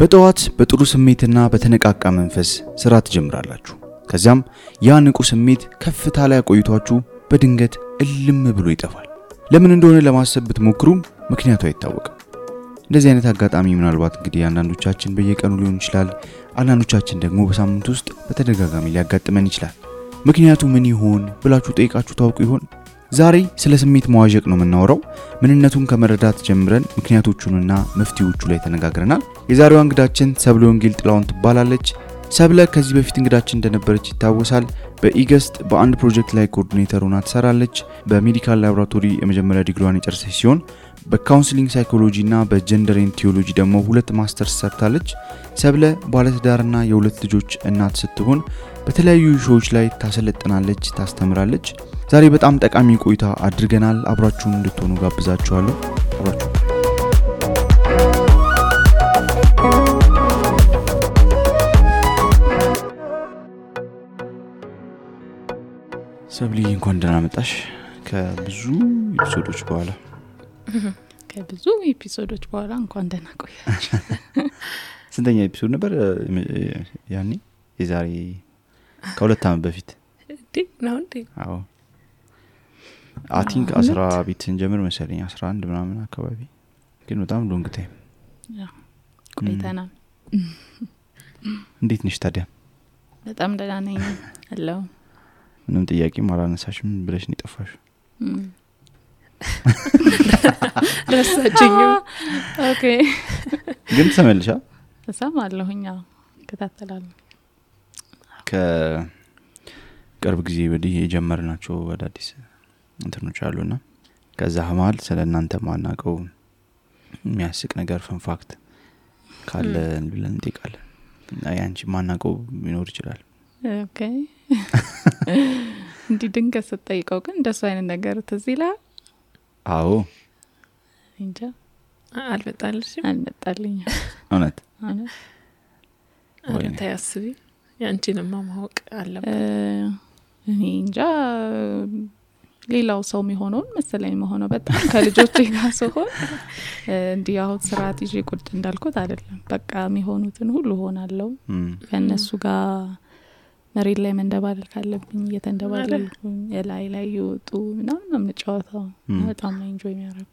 በጠዋት በጥሩ ስሜትና በተነቃቃ መንፈስ ስራ ትጀምራላችሁ። ከዚያም ያ ንቁ ስሜት ከፍታ ላይ ቆይቷችሁ በድንገት እልም ብሎ ይጠፋል። ለምን እንደሆነ ለማሰብ ብትሞክሩም ምክንያቱ አይታወቅም። እንደዚህ አይነት አጋጣሚ ምናልባት እንግዲህ አንዳንዶቻችን በየቀኑ ሊሆን ይችላል፣ አንዳንዶቻችን ደግሞ በሳምንት ውስጥ በተደጋጋሚ ሊያጋጥመን ይችላል። ምክንያቱ ምን ይሆን ብላችሁ ጠይቃችሁ ታውቁ ይሆን? ዛሬ ስለ ስሜት መዋዠቅ ነው የምናወራው። ምንነቱን ከመረዳት ጀምረን ምክንያቶቹንና መፍትሄዎቹ ላይ ተነጋግረናል። የዛሬዋ እንግዳችን ሰብለ ወንጌል ጥላውን ትባላለች። ሰብለ ከዚህ በፊት እንግዳችን እንደነበረች ይታወሳል። በኢገስት በአንድ ፕሮጀክት ላይ ኮኦርዲኔተር ሆና ትሰራለች። በሜዲካል ላቦራቶሪ የመጀመሪያ ዲግሪዋን የጨረሰች ሲሆን በካውንስሊንግ ሳይኮሎጂ እና በጀንደር ኤንድ ቲዮሎጂ ደግሞ 2 ማስተርስ ሰርታለች። ሰብለ ባለትዳርና የሁለት ልጆች እናት ስትሆን በተለያዩ ሾዎች ላይ ታሰለጥናለች፣ ታስተምራለች። ዛሬ በጣም ጠቃሚ ቆይታ አድርገናል። አብራችሁን እንድትሆኑ ጋብዛችኋለሁ። አብራችሁ ሰብሊ እንኳን ደህና መጣሽ። ከብዙ ኤፒሶዶች በኋላ እንኳን ደህና ቆያችሁ። ስንተኛ ኤፒሶድ ነበር ያኔ? የዛሬ ከ2 ዓመት በፊት ነው እንዴ? አዎ አይ ቲንክ 10 ቤት እንጀምር መሰለኝ 11 ምናምን አካባቢ፣ ግን በጣም ሎንግ ታይም ቆይተናል። እንዴት ነሽ ታዲያ? በጣም ደህና ነኝ። ሄሎ ምንም ጥያቄ ማላነሳሽም ብለሽ ነው የጠፋሽ? ረሳችኝ። ኦኬ ግን ተመልሻ ተሰማለሁኛ ከተተላለ ከቅርብ ጊዜ ወዲህ የጀመርናቸው አዳዲስ እንትኖች አሉና ከዛ ሀማል ስለናንተ ማናቀው የሚያስቅ ነገር ፈንፋክት ካለ ብለን እንጠይቃለን። ያንቺ ማናቀው ሊኖር ይችላል። ኦኬ እንዲ ድንገት ስትጠይቀው ግን እንደሱ አይነት ነገር ትዝ ይላል? አዎ እንጃ አልመጣልኝ። እውነት ወይ ታያስቢ ያንቺንማ ማወቅ አለበት። እኔ እንጃ ሌላው ሰው የሚሆነው መሰለኝ መሆነው በጣም ከልጆቼ ጋር ሲሆን እንዲህ አሁን ስርዓት ይዤ ቁጭ እንዳልኩት አይደለም። በቃ የሚሆኑትን ሁሉ ሆናለሁ። ከነሱ ጋር መሬት ላይ መንደባለል ካለብኝ እየተንደባለልኩኝ ላይ ይወጡ ምናምን ነው የምጫወተው። በጣም ነው ኢንጆይ የሚያደርጉት።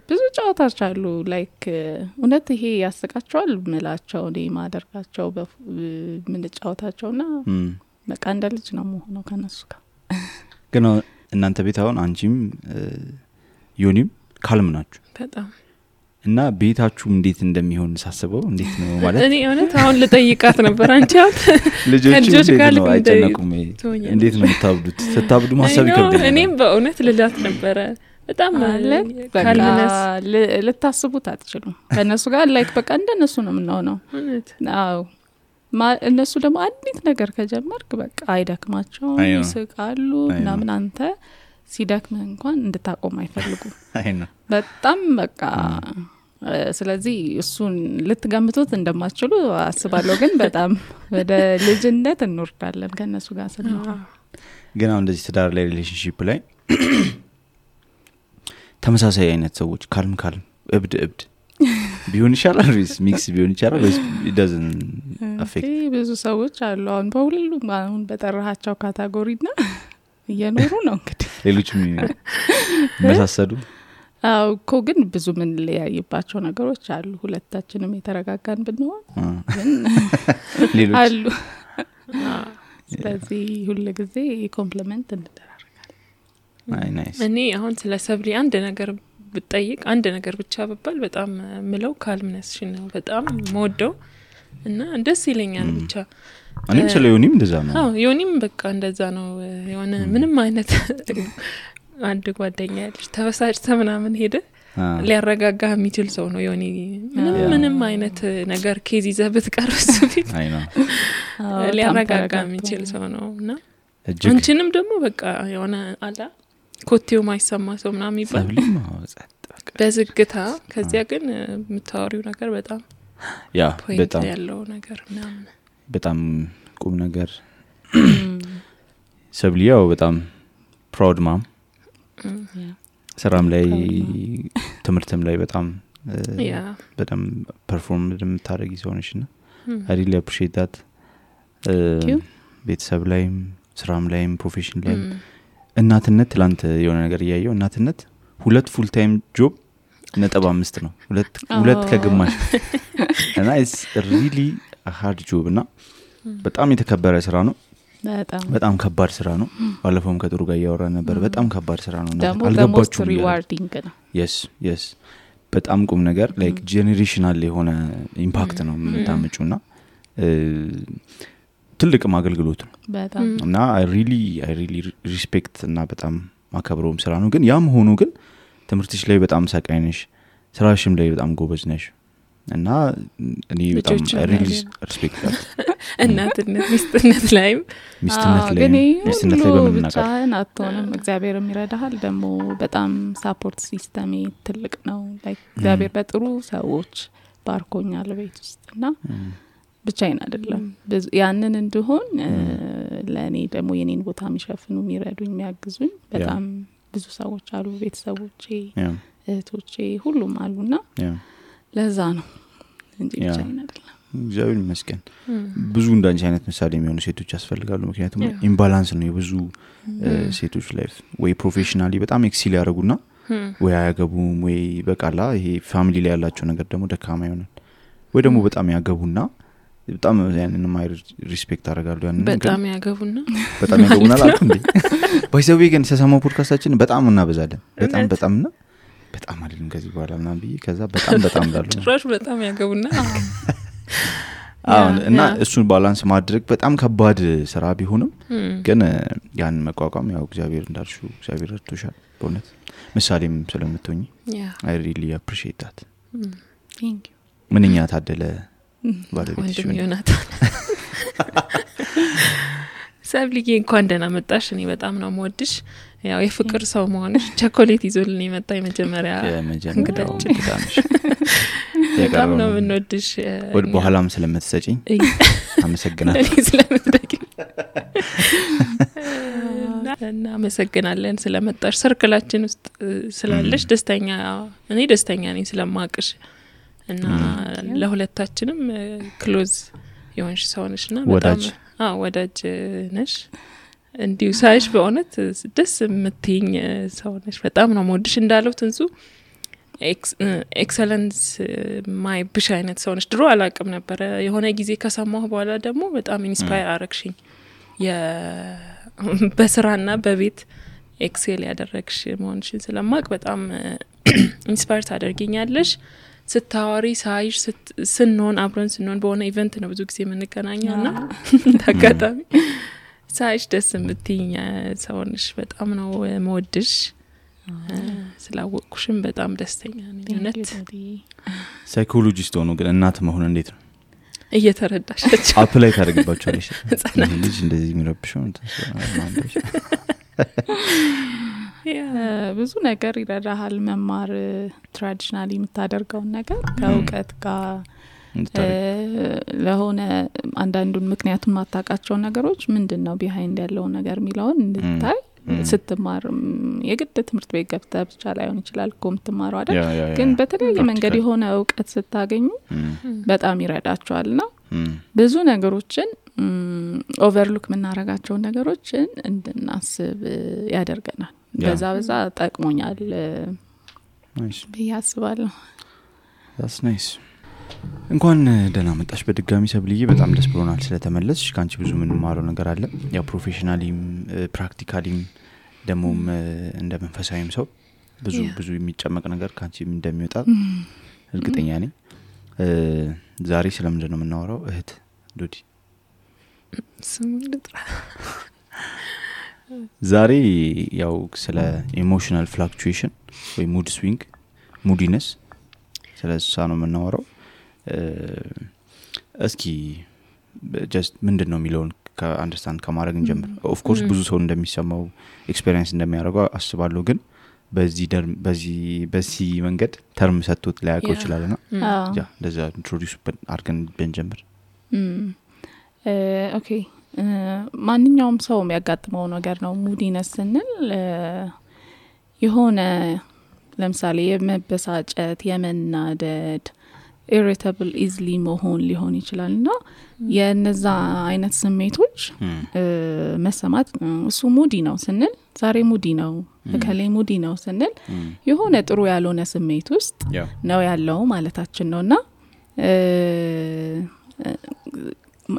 ብዙ ጨዋታዎች አሉ ላይክ እውነት ይሄ ያስቃቸዋል ምላቸው እኔ ማደርጋቸው ምን ጨዋታቸውና በቃ እንደ ልጅ ነው የምሆነው ከነሱ ጋር። ግን እናንተ ቤት አሁን አንቺም ዮኒም ካልም ናችሁ በጣም እና ቤታችሁ እንዴት እንደሚሆን ሳስበው እንዴት ነው ማለት እኔ እውነት አሁን ልጠይቃት ነበር። አንቺ አሁን ልጆች ጋር አይጨነቁም? እንዴት ነው የምታብዱት? ስታብዱ ማሰብ ይከብዳል። እኔም በእውነት ልላት ነበር በጣም ካልምነስ ልታስቡት አትችሉም። ከነሱ ጋር ላይክ በቃ እንደነሱ ነው የምንሆነው። አዎ እነሱ ደግሞ አንዲት ነገር ከጀመርክ በቃ አይደክማቸው ይስቃሉ እና ምን አንተ ሲደክም እንኳን እንድታቆም አይፈልጉም በጣም በቃ። ስለዚህ እሱን ልትገምቱት እንደማትችሉ አስባለሁ። ግን በጣም ወደ ልጅነት እንወርዳለን ከነሱ ጋር ስንሆን። ግን አሁን እንደዚህ ትዳር ላይ ሪሌሽንሺፕ ላይ ተመሳሳይ አይነት ሰዎች ካልም እብድ ቢሆን ይሻላል ወይስ ሚክስ ቢሆን ይችላል ወይስ it doesn't affect? ብዙ ሰዎች አሉ አሁን በሁሉም አሁን በጠራሃቸው ካታጎሪና እየኖሩ ነው እንግዲህ ሌሎችም መሳሰዱ። አው እኮ ግን ብዙ ምን ለያይባቸው ነገሮች አሉ። ሁለታችንም የተረጋጋን ብንሆን ግን ሌሎች አሉ። ስለዚህ ሁሉ ጊዜ ኮምፕሊመንት እንደራረጋለን። ናይስ። እኔ አሁን ስለ ሰብሊ አንድ ነገር ብጠይቅ አንድ ነገር ብቻ በባል በጣም ምለው ካልምነስሽን ነው በጣም ሞደው እና ደስ ይለኛል ብቻ። እኔም ስለ ዮኒም እንደዛ ነው። አዎ ዮኒም በቃ እንደዛ ነው። የሆነ ምንም አይነት አንድ ጓደኛ ያለች ተበሳጭተ ምናምን ሄደ ሊያረጋጋ የሚችል ሰው ነው ዮኒ። ምንም አይነት ነገር ኬዝ ይዘህ ብትቀርስ ፊት ሊያረጋጋ የሚችል ሰው ነውና አንቺንም ደግሞ በቃ የሆነ አላ ኮቴው ማይሰማ ሰው ምናምን ይባል በዝግታ ከዚያ ግን የምታወሪው ነገር በጣም ያ በጣም ያለው ነገር ምናምን በጣም ቁም ነገር። ሰብሊያው በጣም ፕራውድ ማም ስራም ላይ ትምርትም ላይ በጣም በጣም ፐርፎርም እንደምታደርጊ ሰው ነሽና I really appreciate that ቤተሰብ ላይም ስራም ላይም ፕሮፌሽን ላይም እናትነት ትላንት የሆነ ነገር ያየው እናትነት 2 ፉል ታይም ጆብ 5 ነው 2 ከግማሽ እና it's really a hard job እና በጣም የተከበረ ስራ ነው በጣም ከባድ ስራ ነው ባለፈውም ከጥሩ ጋር ያወራ ነበር በጣም ከባድ ስራ ነው አልገባችሁም ሪዋርዲንግ ነው yes በጣም ቁም ነገር like generational የሆነ ኢምፓክት ነው የምታመጪውና ትልቅ ማገልግሎት ነው በጣም እና I really respect እና በጣም ማከብረውም ስራ ነው ግን ያም ሆኖ ግን ትምህርትሽ ላይ በጣም ሰቃይ ነሽ ስራሽም ላይ በጣም ጎበዝ ነሽ እና እኔ በጣም I really respect that እናትነት ሚስትነት ላይ በመናገር አትሆንም እግዚአብሔር የሚረዳሃል ደግሞ በጣም ሳፖርት ሲስተም ትልቅ ነው like እግዚአብሔር በጥሩ ሰዎች ባርኮኛል ቤት ውስጥና ብቻዬን አይደለም ያንን እንደሆን ለኔ ደግሞ የኔን ቦታ የሚሸፍኑ የሚረዱኝ የሚያግዙኝ በጣም ብዙ ሰዎች አሉ ቤተሰቦቼ እህቶቼ ሁሉም አሉና ለዛ ነው እንጂ ብቻዬን አይደለም እግዚአብሔር ይመስገን ብዙ እንዳንቺ አይነት ምሳሌ የሚሆኑ ሴቶች ያስፈልጋሉ ምክንያቱም ኢምባላንስ ነው የብዙ ሴቶች ላይፍ ወይ ፕሮፌሽናሊ በጣም ኤክሲል ያደርጉና ወይ አያገቡም ወይ በቃላ ይሄ ፋሚሊ ላይ ያላቸው ነገር ደግሞ ደካማ ይሆናል ወይ ደግሞ በጣም ያገቡና በጣም ያንን ማይ ሪስፔክት አደርጋለሁ ያንን በጣም ያገቡና አላልኩ እንዴ ባይዘው ግን ሰሰማው ፖድካስታችን በጣም እናበዛለን በጣምና በጣም አይደለም ከዚህ በኋላ ምናምን ብዬ ከዛ በጣም ዳሉ ጭራሽ በጣም ያገቡና እና እሱን ባላንስ ማድረግ በጣም ከባድ ስራ ቢሆንም ግን ያን መቋቋም ያው እግዚአብሔር እንዳልሽው እግዚአብሔር ረድቶሻል በእውነት ምሳሌም ስለምትሆኚ I really appreciate that thank you ምንኛ ታደለ ባለቤትሽ ዮናታን ሰብልዬ እንኳን ደህና መጣሽ እኔ በጣም ነው የምወድሽ ያው የፍቅር ሰው መሆንሽ ቸኮሌት ይዞልኝ የመጣ የመጀመሪያ እንግዳችን በጣም ነው የምንወድሽ ወደ በኋላም ስለምትሰጪኝ አመሰግናለሁ እኔ ስለምትደግኝ እና አመሰግናለን ስለመጣሽ ሰርክላችን ውስጥ ስላለሽ እኔ ደስተኛ ነኝ ስለማቅሽ እና ለሁለታችንም ክሎዝ የሆንሽ ሰው ነሽና በጣም ወዳጅ ነሽ እንዲሁ ሳይሽ በእውነት ደስ የምትይኝ ሰው ነሽ በጣም ነው የምወድሽ እንዳለው ትንሱ ኤክሰለንስ ማይ ብሽ አይነት ሰው ነሽ ድሮ አላቅም ነበር የሆነ ጊዜ ከሰማሁ በኋላ ደግሞ በጣም ኢንስፓየር አረግሽኝ በስራና በቤት ኤክሴል ያደረግሽ መሆንሽን ስለማቅ በጣም ኢንስፓየር ታደርጊኛለሽ ስታወሪ ሳይሽ ስንሆን አብረን ስንሆን በሆነ ኢቨንት ነው ብዙ ጊዜ የምንገናኘውና ተጋጣሚ ሳይሽ ደስ የምትይኝ ሰው ነሽ በጣም ነው የምወድሽ ስላወቅኩሽም በጣም ደስተኛ ነኝ እውነት ሳይኮሎጂስት ሆኖ ግን እናት መሆን እንዴት ነው እየተረዳሻቸው አፕላይ ታደርግባቸዋለሽ ልጅ እንደዚህ የሚረብሽው ብዙ ነገር ይረዳሃል መማር ትራዲሽናሊ የምታደርገውን ነገር ከእውቀት ጋር ለሆነ አንዳንዱን ምክንያቱም ማታቃቸው ነገሮች ምንድነው ቢሃይንድ ያለው ነገር ሚላውን እንድታይ ስትማር የግድ ትምህርት ቤት ገብተህ ብቻ ላይሆን ይችላል ኮምትማሩ አይደል ግን በተለያየ መንገድ የሆነ እውቀት ስታገኙ በጣም ይረዳቸዋልና ብዙ ነገሮችን ኦቨርሉክ ምናረጋቸው ነገሮችን እንድናስብ ያደርገናል በዛ ጠቅሞኛል በያስባለሁ that's nice እንኳን ደህና መጣሽ በድጋሚ ሰብልዬ በጣም ደስ ብሎናል ስለተመለስሽ ካንቺ ብዙ ምን ማረው ነገር አለ ያው ፕሮፌሽናሊም ፕራክቲካሊም ደሞም እንደ መንፈሳዊም ሰው ብዙ የሚጨመቅ ነገር ካንቺ እንደሚወጣ እርግጠኛ ነኝ ዛሬ ስለምንድን ነው የምናወራው እህት ዱዲ ስሙን ልጥራ ዛሬ ያው ስለ ኢሞሽናል ፍላክቹዌሽን ወይ ሙድ ስዊንግ ሙዲነስ ስለዛ ነው የምናወራው እስኪ just ምንድነው የሚለውን ከአንደርስታንድ ከማድረግ እንጀምር ኦፍ ኮርስ ብዙ ሰው እንደሚሰማው ኤክስፒሪየንስ እንደሚያደርገው አስባለሁ ግን በዚህ መንገድ ተርም ሰጥቶት ላያውቀው ይችላልና ያ እንደዛ ኢንትሮዲዩስ አድርገን ብንጀምር ኦኬ ማንኛውም ሰው የሚያጋጥመው ነገር ነው ሙዲነስ ስንል የሆነ ለምሳሌ የመበሳጨት የመናደድ irritable easily መሆን ሊሆን ይችላልና የነዛ አይነት ስሜቶች መሰማት እሱ ሙዲ ነው ስንል ዛሬ ሙዲ ነው ከሌ ሙዲ ነው ስንል የሆነ ጥሩ ያልሆነ ስሜት ውስጥ ነው ያለው ማለታችን ነውና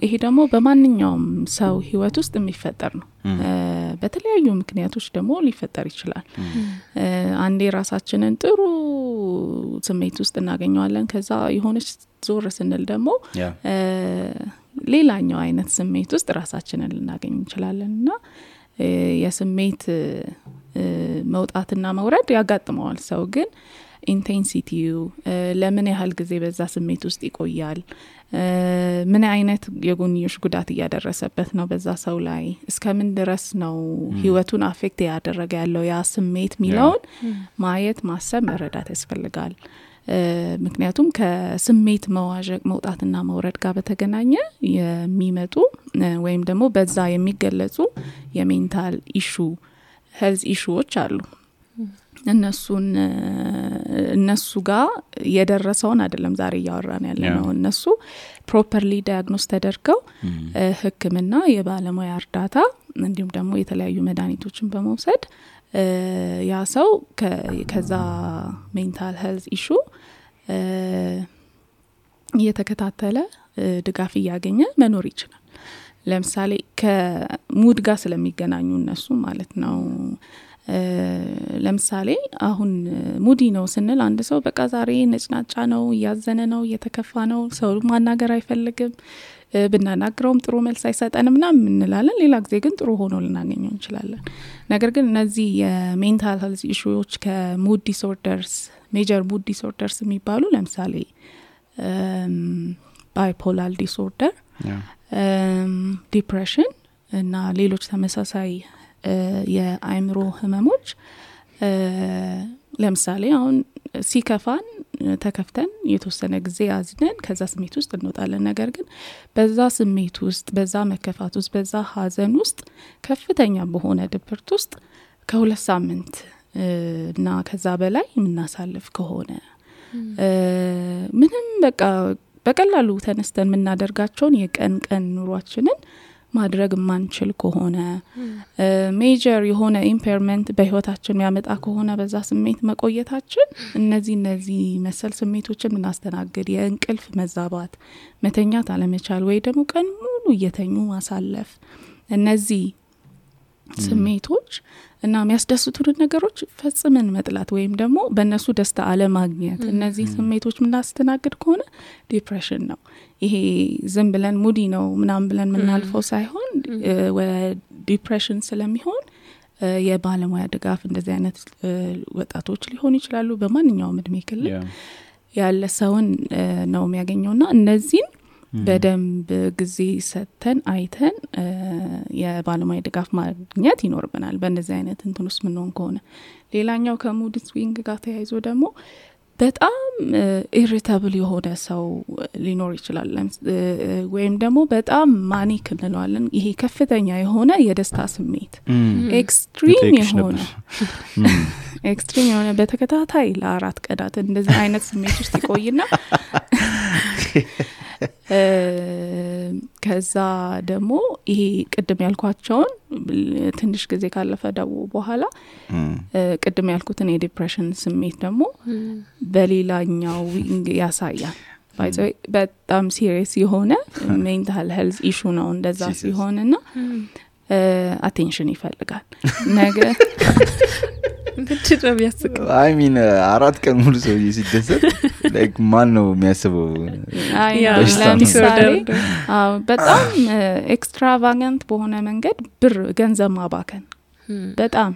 ይሄ ደግሞ በማንኛውም ሰው ህይወት ውስጥ የሚፈጠር ነው በተለያዩ ምክንያቶች ደግሞ ሊፈጠር ይችላል አንዴ ራሳችንን ጥሩ ስሜት ውስጥ እናገኘዋለን ከዛ የሆነች ዞር ስንል ደግሞ ሌላኛው አይነት ስሜት ውስጥ ራሳችንን ልናገኝ እንችላለንና የስሜት መውጣትና መውረድ ያጋጥመዋል ሰው ግን ኢንቴንሲቲው ለምን ያህል ጊዜ በዛ ስሜት ውስጥ ይቆያል ምን አይነት የጎንዮሽ ጉዳት ያደረሰበት ነው በዛ ሰው ላይ እስከምን ድረስ ነው ህይወቱን አፌክት ያደረገ ያለው ያ ስሜት ሚለውን ማየት ማሰብ መረዳት ያስፈልጋል ምክንያቱም ከስሜት መዋዠቅ መውጣትና መውረድ ጋር በተገናኘ የሚመጡ ወይም ደግሞ በዛ የሚገለጹ የሜንታል ኢሹ ሄልዝ ኢሹዎች አሉ እነሱ ጋር የደረሰውን አይደለም ዛሬ ያወራን ያለነው እነሱ ፕሮፐርሊ ዳያግኖስ ተደርገው ህክምና የባለሙያ እርዳታ እንዲሁም ደግሞ የተለያዩ መድኃኒቶችን በመውሰድ ያ ሰው ከዛ ሜንታል ሄልዝ ኢሹ እየተከታተለ ድጋፍ ያገኘ መኖር ይችላል ለምሳሌ ከሙድ ጋር ስለሚገናኙ እነሱ ማለት ነው ለምሳሌ አሁን ሙዲ ነው ስንል አንድ ሰው በቃ ዛሬ ነጭናጫ ነው ያዘነ ነው የተከፋ ነው ሰው ማናገር አይፈልግም ብናናግረውም ጥሩ መልስ አይሰጠንም ምናምን እንላለን ሌላ ጊዜ ግን ጥሩ ሆኖ ልናገኘው እንችላለን ነገር ግን እነዚህ የሜንታል ሄልዝ ኢሹዎች ከሙድ ዲስኦርደርስ ሜጀር ሙድ ዲስኦርደርስ የሚባሉ ለምሳሌ ባይፖላር ዲስኦርደር ዲፕሬሽን እና ሌሎች ተመሳሳይ የአይምሮ ህመሞች ለምሳሌ አሁን ሲከፋን ተከፍተን የተወሰነ ጊዜ አዝነን ከዛ ስሜት ውስጥ እንወጣለን ነገር ግን በዛ ስሜት ውስጥ በዛ መከፋት ውስጥ በዛ ሀዘን ውስጥ ከፍተኛ በሆነ ድብርት ውስጥ ከ2 ሳምንት እና ከዛ በላይ የምናሳልፍ ከሆነ ምንም በቃ በቀላሉ ተነስተን የምናደርጋቸውን የቀን ኑሯችንን ማድረግ ማንችል ከሆነ ሜጀር የሆነ ኢምፔርመንት በህይወታችን ያመጣ ከሆነ በዛ ስሜት መቆየታችን እነዚህ መሰል ስሜቶችን ምናስተናግድ የእንቅልፍ መዛባት መተኛት አለመቻል ወይ ደግሞ ቀን ሙሉ እየተኙ ማሳለፍ እነዚህ ስሜቶች እና የሚያስደስቱን ነገሮች ፈጽመን መጥላት ወይም ደግሞ በእነሱ ደስታ አለማግኘት እነዚህ ስሜቶች ምናስተናግድ ከሆነ ዲፕሬሽን ነው ይሄ ዝም ብለን ሙዲ ነው ምናምን ብለን ምናልፈው ሳይሆን ዲፕሬሽን ስለሚሆን የባለሙያ ድጋፍ እንደዚህ አይነት ወጣቶች ሊሆኑ ይችላሉ በማንኛውም እድሜ ክልል ያለ ሰውን ነው የሚያገኘውና እነዚህን በደንብ ጊዜ ሰተን አይተን የባለሙያ ድጋፍ ማግኘት ይኖርብናል በእንደዚህ አይነት እንትንስ ምን ነው ከሆነ ሌላኛው ከሙድ ስዊንግ ጋር ተያይዞ ደግሞ በጣም ኢሪታብል የሆነ ሰው ሊኖር ይችላል ወይም ደግሞ በጣም ማኒክ እንለዋለን ይሄ ከፍተኛ የሆነ የደስታ ስሜት ኤክስትሪም የሆነ በተከታታይ ለ4 ቀናት እንደዚህ አይነት ስሜት ውስጥ ይቆይና ከዛ ደግሞ ይሄ ቅድም ያልኳቸውን ትንሽ ጊዜ ካለፈ ደግሞ በኋላ ቅድም ያልኩትን የዲፕሬሽን ስሜት ደግሞ በሌላኛው ዊንግ ያሳያል በጣም ሲሪየስ የሆነ ሜንታል ሄልዝ ኢሹ ነው እንደዛ ሲሆንና አቴንሽን ይፈልጋል ነገር እንድትደም ያስቀ አይ ሚን 4 ቀን ሙሉ ሰው ሲደሰት ላይክ ማን ነው የሚያስበው ለምሳሌ በጣም ኤክስትራቫጋንት በሆነ መንገድ ብር ገንዘብ ማባከን በጣም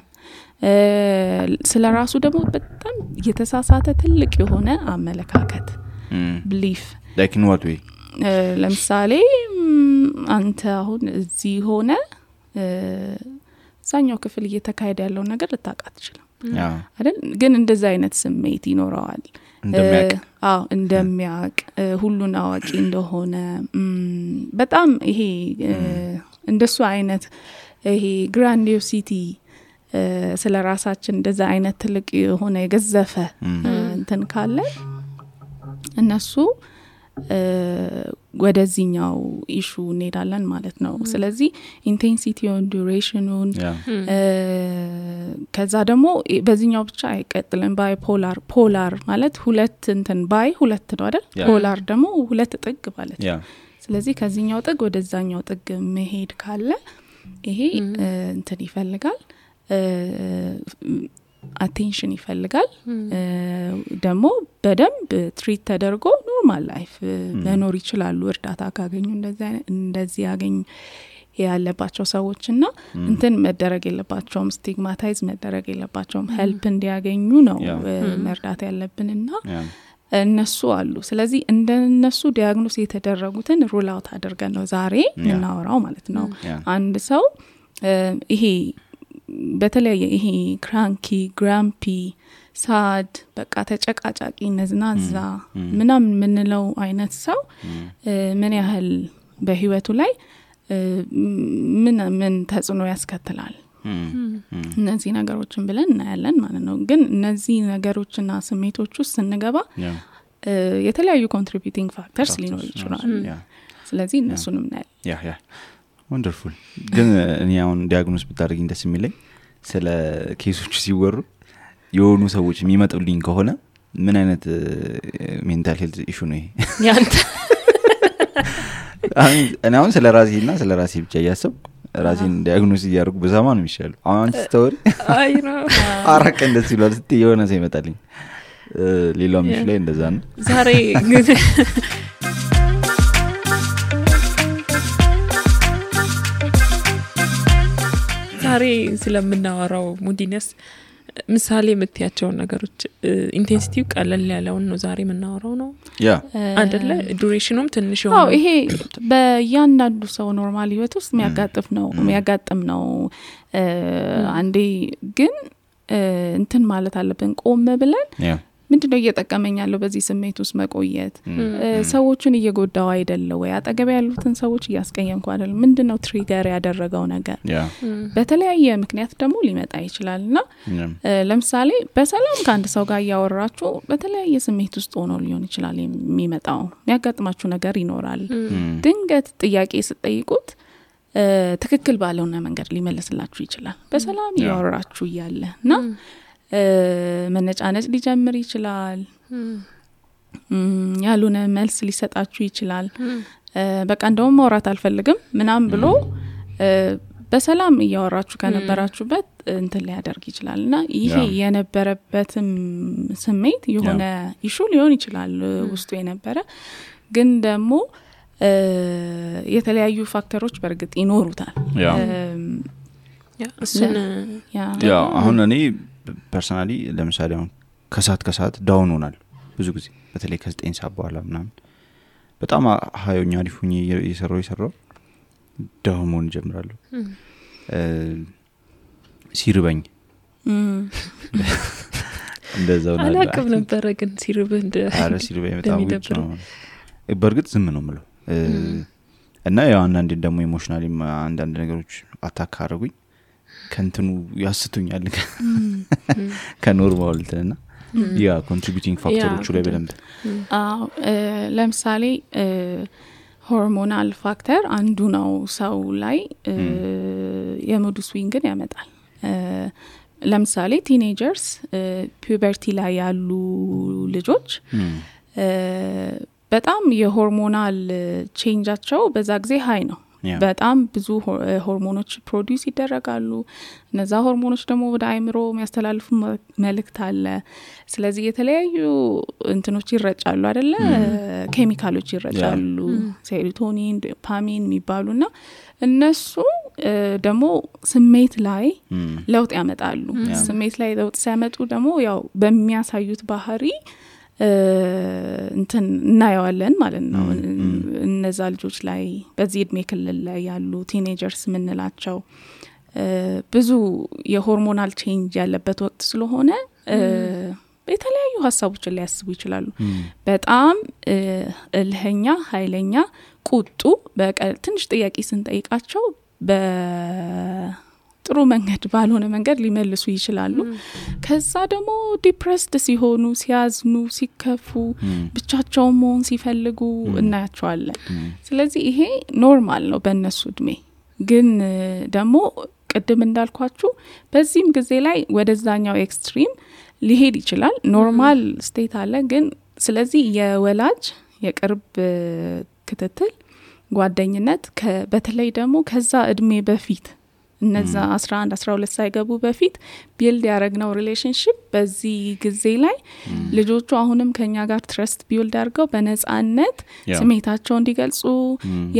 ስለራሱ ደግሞ በጣም የተሳሳተ ትልቅ የሆነ አመለካከት belief like in what way ለምሳሌ አንተ አሁን እዚህ ሆነ ሳኛው ክፍል እየተካሄደ ያለው ነገር ልታቃት ይችላል አይደል ግን እንደዛ አይነት ስሜት ይኖራል እንደሚያቅ ሁሉን አዋቂ እንደሆነ በጣም ይሄ እንደሱ አይነት ይሄ ግራንዲዮሲቲ ስለ ራሳችን እንደዛ አይነት ትልቅ የሆነ የገዘፈ እንትን ካለ እነሱ ወደዚህኛው ኢሹ እንሄዳለን ማለት ነው። ስለዚህ ኢንቴንሲቲውን ዱሬሽኑን ከዛ ደግሞ በዚህኛው ብቻ አይቀጥልም። ባይ ፖላር ማለት ሁለት እንትን ባይ ሁለት ነው አይደል? ፖላር ደግሞ ሁለት ጥግ ማለት ነው። ስለዚህ ከዚህኛው ጥግ ወደዛኛው ጥግ መሄድ ካለ ይሄ እንትን ይፈልጋል አቴንሽን ይፈልጋል ደግሞ በደንብ ትሪት ተደርጎ ኖርማል ላይፍ መኖር ይችላሉ እርዳታ ካገኙ እንደዚህ ያገኙ ያለባቸው ሰዎችና እንትን መደረግ የለባቸውም ስቲግማታይዝ መደረግ የለባቸውም ሄልፕ እንዲያገኙ ነው መርዳት ያለብንና እነሱ አሉ። ስለዚህ እንደነሱ ዲያግኖስ የተደረጉትን ሩል አውት አድርገን ነው ዛሬ እናወራው ማለት ነው። አንድ ሰው ይሄ በተለያየ ይሄ ክራንኪ ግራምፒ ሳድ በቃ ተጨቃጫቂ ነዝናዛ ምናምን ምንለው አይነት ሰው ምን ያህል በህይወቱ ላይ ምን ተጽዕኖ ያስከትላል እነዚህ ነገሮችን ብለን እናያለን ማለት ነው። ግን እነዚህ ነገሮችና ስሜቶች ውስጥ ስንገባ የተለያዩ ኮንትሪቢዩቲንግ ፋክተርስ ሊኖሩ ይችላል። ስለዚህ እነሱንም እናያለን። ወንደርፉል። ግን እኔ አሁን ዲያግኖስ ብታደርጊኝ ደስ የሚለኝ ስለ ኬሶች ሲወሩ የሆኑ ሰዎች የሚመጡልኝ ከሆነ ምን አይነት ሜንታል ሄልዝ ኢሹ ነው ይሄ ያንተ አሁን ስለ ራሴና ስለ ራሴ ብቻ እያሰብኩ ራሴን ዲያግኖስ እያደረጉ በዛማ ነው የሚሻለው። አሁን ስቶሪ አይ ነው አራቀ እንደዚህ ይላል ስትይ የሆነ ሰው ይመጣልኝ ሌላው ምሽ ላይ እንደዛ ነው ዛሬ ግን ዛሬ ስለምናወራው ሙዲነስ ምሳሌ የምትያቸው ነገሮች ኢንቴንሲቲው ቀለል ያለውን ነው ዛሬ የምናወራው ነው አይደለ? ዱሬሽኑም ትንሽ ነው። ይሄ በእያንዳንዱ ሰው ኖርማል ህይወት ውስጥ የሚያጋጥም ነው። አንዴ ግን እንትን ማለት አለብን ቆም ብለን ምንድነው እየጠቀመኝ ያለው በዚህ ስሜት ውስጥ መቆየት ሰዎችን እየጎዳው አይደለም ወይ አጠገብ ያሉትን ሰዎች እያስቀየምኩ አይደለም ምንድነው ትሪገር ያደረገው ነገር በተለያየ ምክንያት ደግሞ ሊመጣ ይችላልና ለምሳሌ በሰላም ከአንድ ሰው ጋር ያወራችሁ በተለያየ ስሜት ውስጥ ሆኖ ሊሆን ይችላል የሚመጣው የሚያጋጥማችሁ ነገር ይኖራል። ድንገት ጥያቄ ስትጠይቁት ትክክል ባለውና መንገድ ሊመልስላችሁ ይችላል በሰላም ያወራችሁ ይያለና መነጫነጭ ሊጀምር ይችላል ያሉነ መልስ ሊሰጣችሁ ይችላል። በቃ እንደውም ማውራት አልፈልግም ምናም ብሎ በሰላም ያወራችሁ ከነበራችሁበት እንትን ሊያደርግ ይችላልና ይሄ የነበረበትም ስሜት የሆነ ኢሹ ሊሆን ይችላል ውስጡ የነበረ ግን ደግሞ የተለያዩ ፋክተሮች በርግጥ ይኖሩታል። አሁን እኔ ፐርሰናሊ ለምሳሌ አሁን ከሰዓት ዳውን ሆናል ብዙ ጊዜ በተለይ ከ9 ሰዓት በኋላ ምናምን በጣም ሀዮኛ ሊፉኝ እየሰራው ዳውን ሆን ጀምራለሁ። ሲርበኝ እንደዛው ነው አላውቅም ነበር ግን ሲርበኝ በጣም ነው በርግጥ ዝም ነው የምለው እና ያው አንዳንዴ ደግሞ ኢሞሽናሊ አንዳንድ ነገሮች አታክ አደረጉኝ ከንትኑ ያስቱኛል ከኖርማል እንትና ያ ኮንትሪቢዩቲንግ ፋክተሮቹ ላይ በደንብ ለምሳሌ ሆርሞናል ፋክተር አንዱ ነው ሰው ላይ የሙድ ስዊንግን ያመጣል። ለምሳሌ ቲኔጀርስ ፒዩበርቲ ላይ ያሉ ልጆች በጣም የሆርሞናል ቼንጃቸው በዛ ጊዜ ሃይ ነው በጣም ብዙ ሆርሞኖች ፕሮዲዩስ ይደረጋሉ እነዛ ሆርሞኖች ደግሞ ወደ አይምሮ የሚያስተላልፉ መልእክት አለ። ስለዚህ የተለያዩ እንትኖች ይረጫሉ አይደለ ኬሚካሎች ይረጫሉ ሴሮቶኒን ዶፓሚን የሚባሉና እነሱ ደግሞ ስሜት ላይ ለውጥ ያመጣሉ። ስሜት ላይ ለውጥ ሲያመጡ ደግሞ ያው በሚያሳዩት ባህሪ እንትን እናያለን ማለት ነው። እነዛ ልጆች ላይ በዚህ እድሜ ክልል ላይ ያሉ ቲኔጀርስ ምንላቸው ብዙ የሆርሞናል ቼንጅ ያለበት ወቅት ስለሆነ የተለያዩ ሀሳቦችን ሊያስቡ ይችላሉ። በጣም እልህኛ ኃይለኛ ቁጡ ትንሽ ጥያቄ ስንጠይቃቸው ጥሩ መንገድ ባልሆነ መንገድ ሊመልሱ ይችላሉ ከዛ ደግሞ ዲፕሬስድ ሲሆኑ ሲያዝኑ ሲከፉ ብቻቸውን መሆን ሲፈልጉ እናያቸዋለን ስለዚህ ይሄ ኖርማል ነው በእነሱ እድሜ ግን ደግሞ ቅድም እንዳልኳችሁ በዚህም ጊዜ ላይ ወደዛኛው ኤክስትሪም ሊሄድ ይችላል ኖርማል ስቴት አለ ግን ስለዚህ የወላጅ የቅርብ ክትትል ጓደኝነት በተለይ ደግሞ ከዛ እድሜ በፊት እነዛ 11 12 ሳይገቡ በፊት ቢልድ ያረግነው ሪሌሽንሺፕ በዚህ ጊዜ ላይ ልጆቹ አሁንም ከኛ ጋር ትረስት ቢልድ አድርገው በነጻነት ስሜታቸውን እንዲገልጹ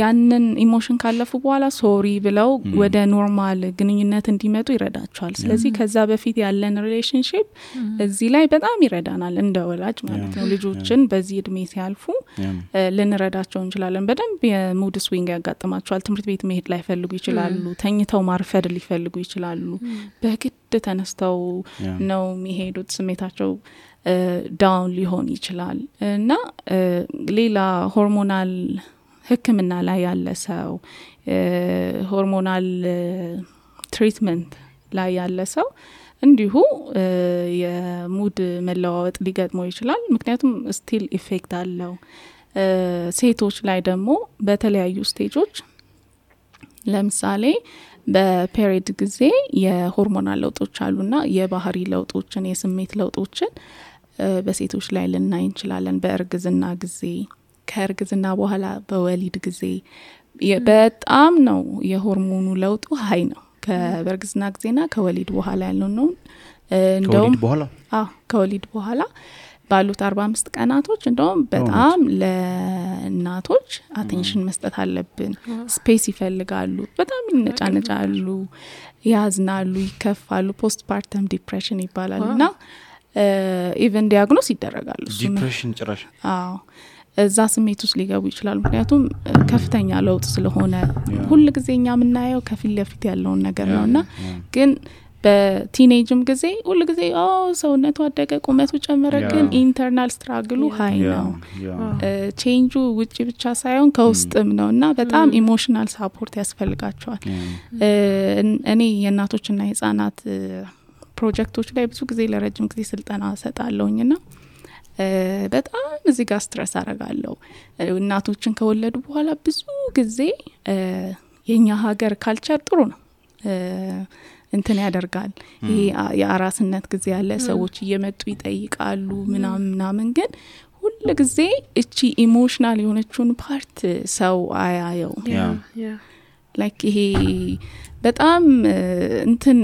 ያንን ኢሞሽን ካለፉ በኋላ ሶሪ ብለው ወደ ኖርማል ግንኙነት እንዲመጡ ይረዳቸዋል ስለዚህ ከዛ በፊት ያለን ሪሌሽንሺፕ እዚህ ላይ በጣም ይረዳናል እንደ ወላጅ ማለት ነው ልጆችን በዚህ እድሜ ሲያልፉ ልንረዳቸው እንችላለን በደንብ የሙድ ስዊንግ ያጋጥማቸዋል ትምህርት ቤት መሄድ ላይ ፈልጉ ይችላሉ ተኝተው ማርፈድ ሊፈልጉ ይችላሉ በግድ ተነስተው ነው የሚሄዱት ስሜታቸው ዳውን ሊሆን ይችላል እና ሌላ ሆርሞናል ህክምና ላይ ያለ ሰው ሆርሞናል ትሪትመንት ላይ ያለ ሰው እንዲሁ የሙድ መለዋወጥ ሊገጥመው ይችላል ምክንያቱም ስቲል ኢፌክት አለው ሴቶች ላይ ደግሞ በተለያዩ ስቴጆች ለምሳሌ በፔሪድ ጊዜ የሆርሞናል ለውጦች አሉና የባህሪ ለውጦችን የስሜት ለውጦችን በሴቶች ላይ ልናይ እንችላለን በእርግዝና ጊዜ ከእርግዝና በኋላ በወሊድ ጊዜ በጣም ነው የሆርሞኑ ለውጡ ሀይ ነው ከበርግዝና ጊዜና ከወሊድ በኋላ ያለው ነው እንደውም ከወሊድ በኋላ ባሉት 45 ቀናቶች እንደውም በጣም ለእናቶች አቴንሽን መስጠት አለብን ስፔስ ይፈልጋሉ በጣም ይነጫነጫሉ ያዝናሉ ይከፋሉ ፖስት ፓርተም ዲፕሬሽን ይባላልና ኢቨን ዲያግኖስ ይደረጋሉ ዲፕሬሽን ጭራሽ እዛ ስሜት ውስጥ ሊገቡ ይችላሉ ምክንያቱም ከፍተኛ ለውጥ ስለሆነ ሁሉ ጊዜኛ ምናየው ከፊት ለፊት ያለውን ነገር ነውና ግን በቲኔጅም ጊዜ ሁሉ ጊዜ ሰውነቱ አደገ ቁመቱ ጨመረ ግን ኢንተርናል ስትራግሉ ሃይ ነው ቼንጁ ውጪ ብቻ ሳይሆን ከውስጥም ነውና በጣም ኢሞሽናል ሳፖርት ያስፈልጋቸዋል እኔ የእናቶችና የህፃናት ፕሮጀክቶች ላይ ብዙ ጊዜ ለረጅም ጊዜ ስልጠና ሰጣለሁኝና በጣም እዚህ ጋር ስትረስ አረጋለሁ እናቶችን ከወለዱ በኋላ ብዙ ጊዜ የኛ ሀገር ካልቸር ጥሩ ነው እንትን ያደርጋል ይሄ የአራስነት ጊዜ ያለ ሰዎች እየመጡ ይጠይቃሉ ምናምን ግን ሁሉ ጊዜ እቺ ኢሞሽናል የሆነችውን ፓርት ሰው አያየው ላይክ ይሄ በጣም እንትን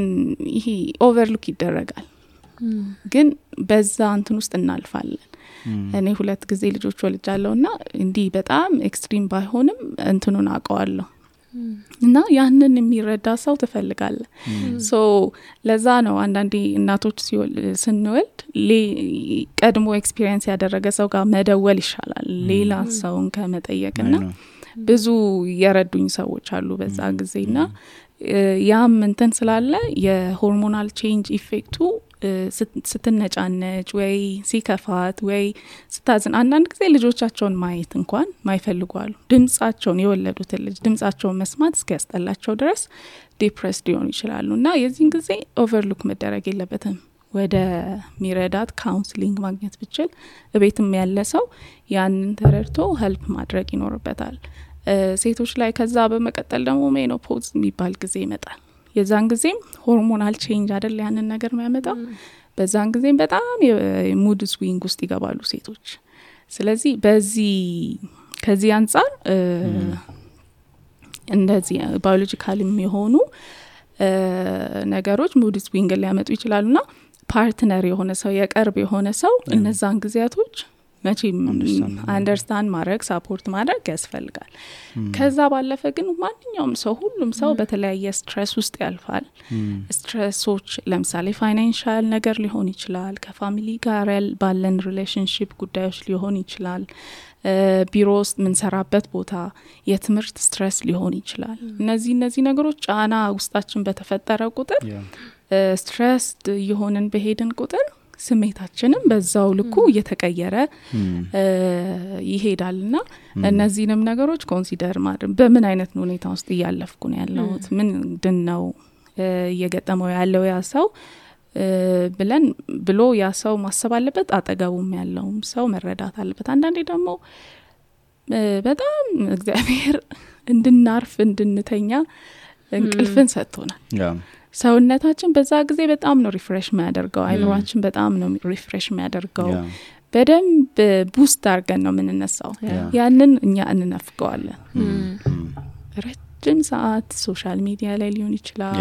ይሄ ኦቨርሉክ ይደረጋል ግን በዛ እንትን ውስጥ እናልፋለን እኔ 2 ጊዜ ልጆች ወልጃለሁና እንዲህ በጣም ኤክስትሪም ባይሆንም እንትኑን አውቀዋለሁ እና ያንን የሚረዳ ሰው ትፈልጋለ ሶ ለዛ ነው አንዳንዴ እናቶች ስንወልድ ቀድሞ ኤክስፒሪየንስ ያደረገ ሰው ጋር መደወል ይሻላል ሌላ ሰውን ከመጠየቅና ብዙ የረዱኝ ሰዎች አሉ በዛ ጊዜና ያም እንትን ስላለ የሆርሞናል ቼንጅ ኢፌክቱ ስትነጫነጭ ወይ ሲከፋት ወይ ስታዝን አንዳንድ ጊዜ ልጆቻቸውን ማየት እንኳን ማይፈልጓሉ ድምጻቸውን የወለዱትን ልጅ ድምጻቸውን መስማት እስኪያስጠላቸው ድረስ ዲፕሬስድ ሊሆኑ ይችላሉና የዚህን ጊዜ ኦቨርሉክ መደረግ የለበትም ወደ ሚረዳት ካውንስሊንግ ማግኘት ብቻል እቤትም ያለ ሰው ያንን ተረድቶ ሄልፕ ማድረግ ይኖርበታል ሴቶች ላይ ከዛ በመቀጠል ደግሞ ሜኖፖዝ የሚባል ጊዜ ይመጣል የዛን ጊዜም ሆርሞናል ቼንጅ አይደል ያንን ነገር የሚያመጣው በዛን ጊዜም በጣም የሙድ ስዊንግ ውስጥ ይገባሉ ሴቶች ስለዚህ ከዚህ አንፃር እንደዚህ ባዮሎጂካልም የሆኑ ነገሮች ሙድ ስዊንግ ሊያመጡ ይችላሉና ፓርትነር የሆነ ሰው የቅርብ የሆነ ሰው እነዛን ጊዜያቶች መቼም አንደርስታንድ ማድረግ ሳፖርት ማድረግ ያስፈልጋል ከዛ ባለፈ ግን ማንኛውም ሰው ሁሉም ሰው በተለያየ ስትሬስ ውስጥ ያልፋል ስትሬሶች ለምሳሌ ፋይናንሻል ነገር ሊሆን ይችላል ከፋሚሊ ጋር ባለን ሪሌሽንሺፕ ጉዳዮች ሊሆን ይችላል ቢሮ ውስጥ ምንሰራበት ቦታ የትምህርት ስትሬስ ሊሆን ይችላል እነዚህ ነገሮች ጫና ውስጣችን በተፈጠረ ቁጥር ስትሬስድ የሆነን በሄድን ቁጥር ስሜታችንም በዛው ልኩ እየተቀየረ ይሄዳልና እነዚህንም ነገሮች ኮንሲደር ማድረግ በምን አይነት ሁኔታ ውስጥ ያለፍኩ ነው ያለሁት ምንድነው እየገጠመው ያለው ያ ሰው ብሎ ያ ሰው ማሰብ አለበት። አጠገቡም ያለውም ሰው መረዳት አለበት። አንዳንዴ ደግሞ በጣም እግዚአብሔር እንድናርፍ እንድንተኛ እንቅልፍን ሰጥቶናል። ሰውነታችን በዛ ጊዜ በጣም ነው ሪፍሬሽ የሚያደርገው። አይምሮአችን በጣም ነው ሪፍሬሽ የሚያደርገው። በደንብ ቡስት አድርገን ነው የምንነሳው። ያንን እኛ እንነፍገዋለን። ረጅም ሰዓት ሶሻል ሚዲያ ላይ ሊሆን ይችላል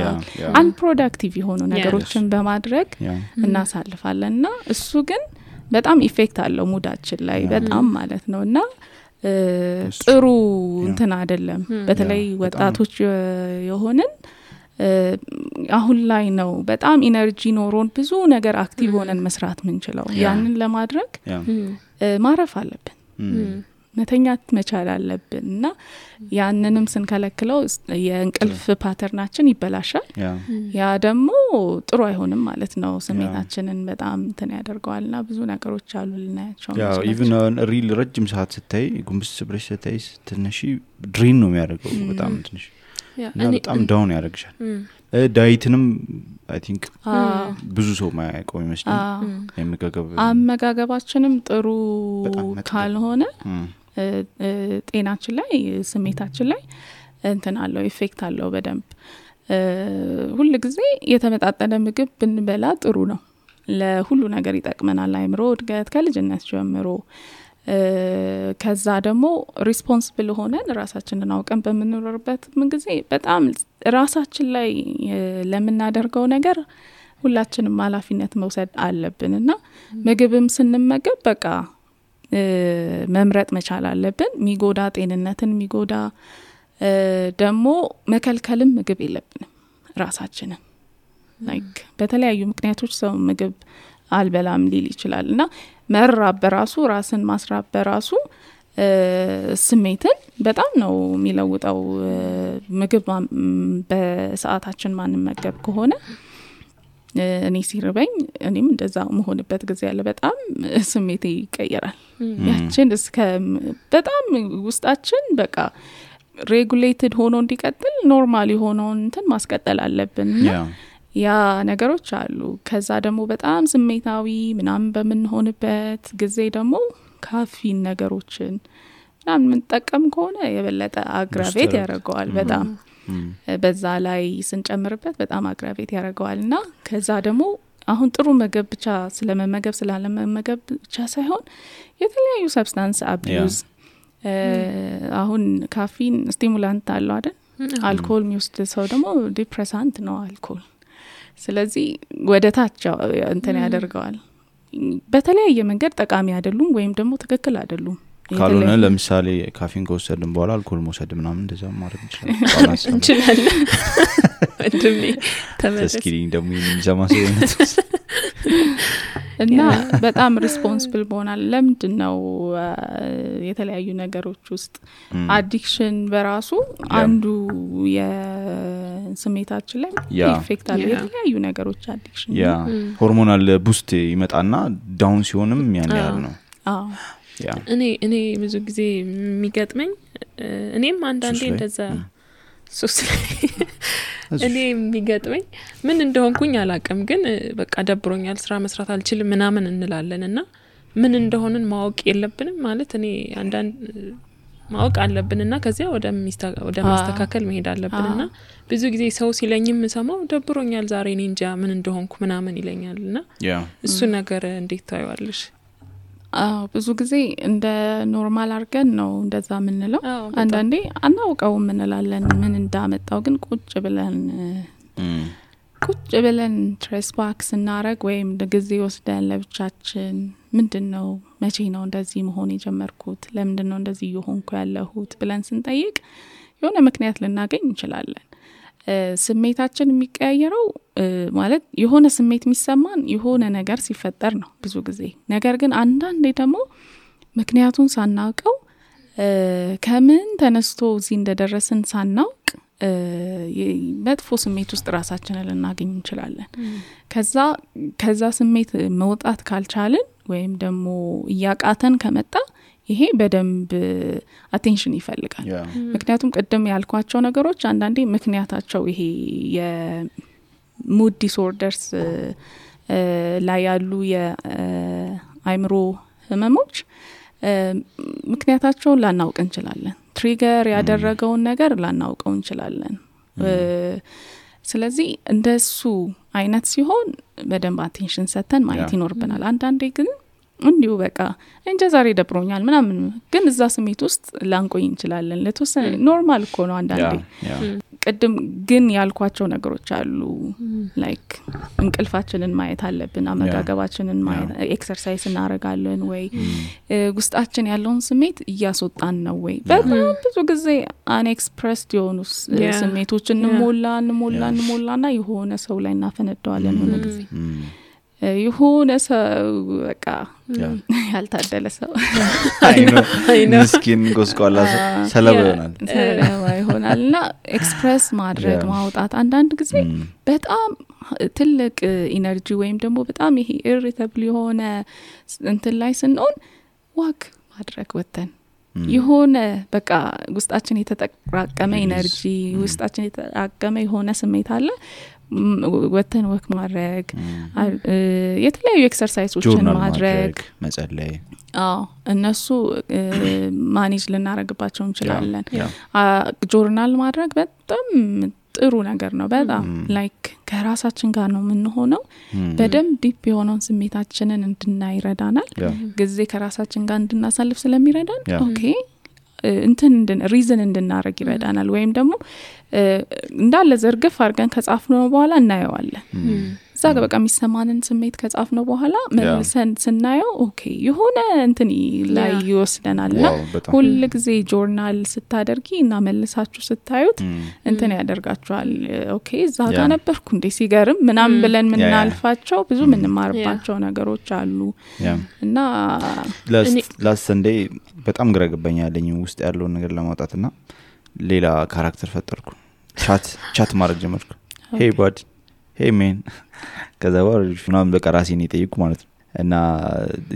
አንፕሮዳክቲቭ የሆኑ ነገሮችን በማድረግ እናሳልፋለንና እሱ ግን በጣም ኢፌክት አለው ሙዳችን ላይ በጣም ማለት ነውና ጥሩ እንትን አይደለም። በተለይ ወጣቶች የሆነን አሁን ላይ ነው በጣም ኢነርጂ ኖሮን ብዙ ነገር አክቲቭ ሆነን መስራት ምንችለው። ያንን ለማድረግ ማረፍ አለብን፣ መተኛት መቻል አለብንና ያንንም ስንከለክለው የእንቅልፍ ፓተርናችን ይበላሻል። ያ ደግሞ ጥሩ አይሆንም ማለት ነው። ስሜታችንን በጣም እንትን ያደርገዋልና ብዙ ነገሮች አሉ ልናያቸው። ያው ኢቭን ሪል ረጅም ሰዓት ስታይ ጉንብስ ብለሽ ስታይ ትንሽ ድሬን ነው የሚያደርገው በጣም ትንሽ በጣም ዳውን ያደርግሻል። ዳይትንም አይ ቲንክ ብዙ ሰው ማያውቀው ይመስላል። አመጋገባችንም ጥሩ ካልሆነ ጤናችን ላይ ስሜታችን ላይ እንትን አለው ኢፌክት አለው በደንብ። ሁሉ ጊዜ የተመጣጠነ ምግብ ብንበላ ጥሩ ነው። ለሁሉ ነገር ይጠቅመናል። አይምሮ እድገት ከልጅነት ጀምሮ ከዛ ደግሞ ሪስፖንሲብል ሆነን ራሳችንን አውቀን በመኖርበት ምን ጊዜ በጣም ራሳችን ላይ ለምናደርገው ነገር ሁላችንም ኃላፊነት መውሰድ አለብንና ምግብም ስንመገብ በቃ መምረጥ መቻል አለብን። ሚጎዳ ጤንነትን ሚጎዳ ደግሞ መከልከልም ምግብ የለብንም ራሳችንን። ላይክ በተለያዩ ምክንያቶች ሰው ምግብ አልበላም ሊል ይችላልና መራብ በራሱ ራስን ማስራብ በራሱ ስሜትን በጣም ነው የሚለውጠው። ምግብ በሰዓታችን ማንመገብ ከሆነ እኔ ሲርበኝ እኔም እንደዛ መሆንበት ጊዜ ያለ በጣም ስሜቴ ይቀየራል። ያችን እስከ በጣም ውስጣችን በቃ ሬጉሌትድ ሆኖ እንዲቀጥል ኖርማል የሆነውን እንትን ማስቀጠል አለብን። ያ ነገሮች አሉ። ከዛ ደግሞ በጣም ስሜታዊ ምናምን በምንሆንበት ጊዜ ደግሞ ካፊን ነገሮችን ምናምን የምንጠቀም ከሆነ የበለጠ አግራቬት ያደርገዋል በጣም። በዛ ላይ ስንጨምርበት በጣም አግራቬት ያደርገዋልና ከዛ ደግሞ አሁን ጥሩ ምግብ ብቻ ስለመመገብ ስላለመመገብ ብቻ ሳይሆን የተለያዩ ሰብስታንስ አቢዩዝ አሁን ካፊን ስቲሙላንት አለው አይደል? አልኮል የሚወስድ ሰው ደግሞ ዲፕሬሳንት ነው አልኮል። ስለዚህ ወደ ታች እንትን ያደርገዋል። በተለያየ መንገድ ጠቃሚ አይደሉም ወይም ደግሞ ትክክል አይደሉም። ካልሆነ ለምሳሌ ካፊን ከወሰድን በኋላ አልኮል መውሰድ ምናምን እንደዛ ማድረግ እንችላለን። እንደም ተስኪሪኝ ደግሞ የሚዘማሰውነት እና በጣም ሪስፖንሲብል ሆናል። ለምንድነው የተለያዩ ነገሮች ውስጥ አዲክሽን በራሱ አንዱ የስሜታችን ላይ ኢፌክት አለ። የተለያዩ ነገሮች አዲክሽን ሆርሞናል ቡስት ይመጣና ዳውን ሲሆንም ያን ያህል ነው። እኔ ብዙ ጊዜ የሚገጥመኝ እኔም አንዳንዴ እንደዛ ሱስ እኔ የሚገጥመኝ ምን እንደሆንኩኝ አላቅም፣ ግን በቃ ደብሮኛል ስራ መስራት አልችልም ምናምን እንላለንና ምን እንደሆነን ማወቅ የለብንም ማለት እኔ አንዳንድ ማወቅ አለብንና ከዚያ ወደ ማስተካከል መሄድ አለብንና ብዙ ጊዜ ሰው ሲለኝም ሰማው ደብሮኛል ዛሬ እኔ እንጃ ምን እንደሆንኩ ምናምን ይለኛልና እሱ ነገር እንዴት ታዩዋለሽ? ብዙ ጊዜ እንደ ኖርማል አርገን ነው እንደዛ ምንለው። አንዳንዴ አናውቀው ምንላለን ምን እንዳመጣው፣ ግን ቁጭ ብለን ትሬስ ባክ ስናረግ ወይም ጊዜ ወስደን ለብቻችን ምንድነው መቼ ነው እንደዚህ መሆን የጀመርኩት፣ ለምንድነው እንደዚህ እየሆንኩ ያለሁት ብለን ስንጠይቅ የሆነ ምክንያት ልናገኝ እንችላለን። ስሜታችን የሚቀያየረው ማለት የሆነ ስሜት የሚሰማን የሆነ ነገር ሲፈጠር ነው ብዙ ጊዜ። ነገር ግን አንዳንዴ ደግሞ ምክንያቱን ሳናውቀው ከምን ተነስቶ እዚህ እንደደረስን ሳናውቅ መጥፎ ስሜት ውስጥ ራሳችንን ልናገኝ እንችላለን። ከዛ ስሜት መውጣት ካልቻልን ወይም ደግሞ እያቃተን ከመጣ ይሄ በደንብ አቴንሽን ይፈልጋል ምክንያቱም ቅድም ያልኳቸው ነገሮች አንዳንዴ ምክንያታቸው ይሄ የሙድ ዲስኦርደርስ ላይ ያሉ የአይምሮ ህመሞች ምክንያታቸውን ላናውቅ እንችላለን ትሪገር ያደረገውን ነገር ላናውቀው እንችላለን ስለዚህ እንደሱ አይነት ሲሆን በደንብ አቴንሽን ሰተን ማየት ይኖርብናል አንዳንዴ ግን እንዲሁ በቃ እንጃ ዛሬ ደብሮኛል ምናምን ግን እዛ ስሜት ውስጥ ላንቆይ እንችላለን ለተወሰነ ኖርማል እኮ ነው አንዳንዴ ቅድም ግን ያልኳቸው ነገሮች አሉ ላይክ እንቅልፋችንን ማየት አለብን አመጋገባችንን ማየት ኤክሰርሳይዝ እናረጋለን ወይ ውስጣችን ያለውን ስሜት እያስወጣን ነው ወይ በጣም ብዙ ጊዜ አንኤክስፕረስድ የሆኑ ስሜቶችን እንሞላና የሆነ ሰው ላይ እናፈነደዋለን ነው ጊዜ የሆነ ሰው በቃ ያልታደለ ሰው ምስኪን ጎስቋላ ሰለባ ይሆናልና ኤክስፕረስ ማድረግ ማውጣት አንዳንድ ጊዜ በጣም ትልቅ ኢነርጂ ወይም ደግሞ በጣም ይሄ ኢሪቴብል የሆነ እንትን ላይ ስንሆን ዋክ ማድረግ ወተን የሆነ በቃ ውስጣችን የተጠራቀመ ኢነርጂ ውስጣችን የተጠራቀመ የሆነ ስሜት አለ ወተን ወክ ማድረግ የተለያዩ ኤክሰርሳይዞችን ማድረግ መጸለይ እነሱ ማኔጅ ልናረግባቸው እንችላለን ጆርናል ማድረግ በጣም ጥሩ ነገር ነው በጣም ላይክ ከራሳችን ጋር ነው የምንሆነው በደም ዲፕ የሆነውን ስሜታችንን እንድናይረዳናል ጊዜ ከራሳችን ጋር እንድናሳልፍ ስለሚረዳን ኦኬ ሪዝን እንድናረግ ይረዳናል ወይም ደግሞ እንዳለ ዘርግፍ አድርገን ከጻፍነው በኋላ እናየዋለን እዛ በቃ የሚሰማንን ስሜት ከጻፍነው በኋላ መልሰን ስናየው ኦኬ የሆነ እንትን ላይ ይወስደናልና ሁሉ ጊዜ ጆርናል ስታደርጊ እና መልሳችሁ ስታዩት እንትን ያደርጋችኋል ኦኬ እዛ ጋር ነበርኩ እንዴ ሲገርም ምናምን ብለን ምናልፋቸው ብዙ ምንማርባቸው ነገሮች አሉ እና ላስት ሰንዴይ በጣም ግራ ገባኛለኝ ውስጥ ያለው ነገር ለማውጣትና ሌላ ካራክተር ፈጠርኩ ቻት ማድረግ ጀመርኩ ሄይ ባድ ሄይ ሜን ከዛ ወርጅ ምናምን በቃ ራሴን እየጠየቁ ማለት ነው እና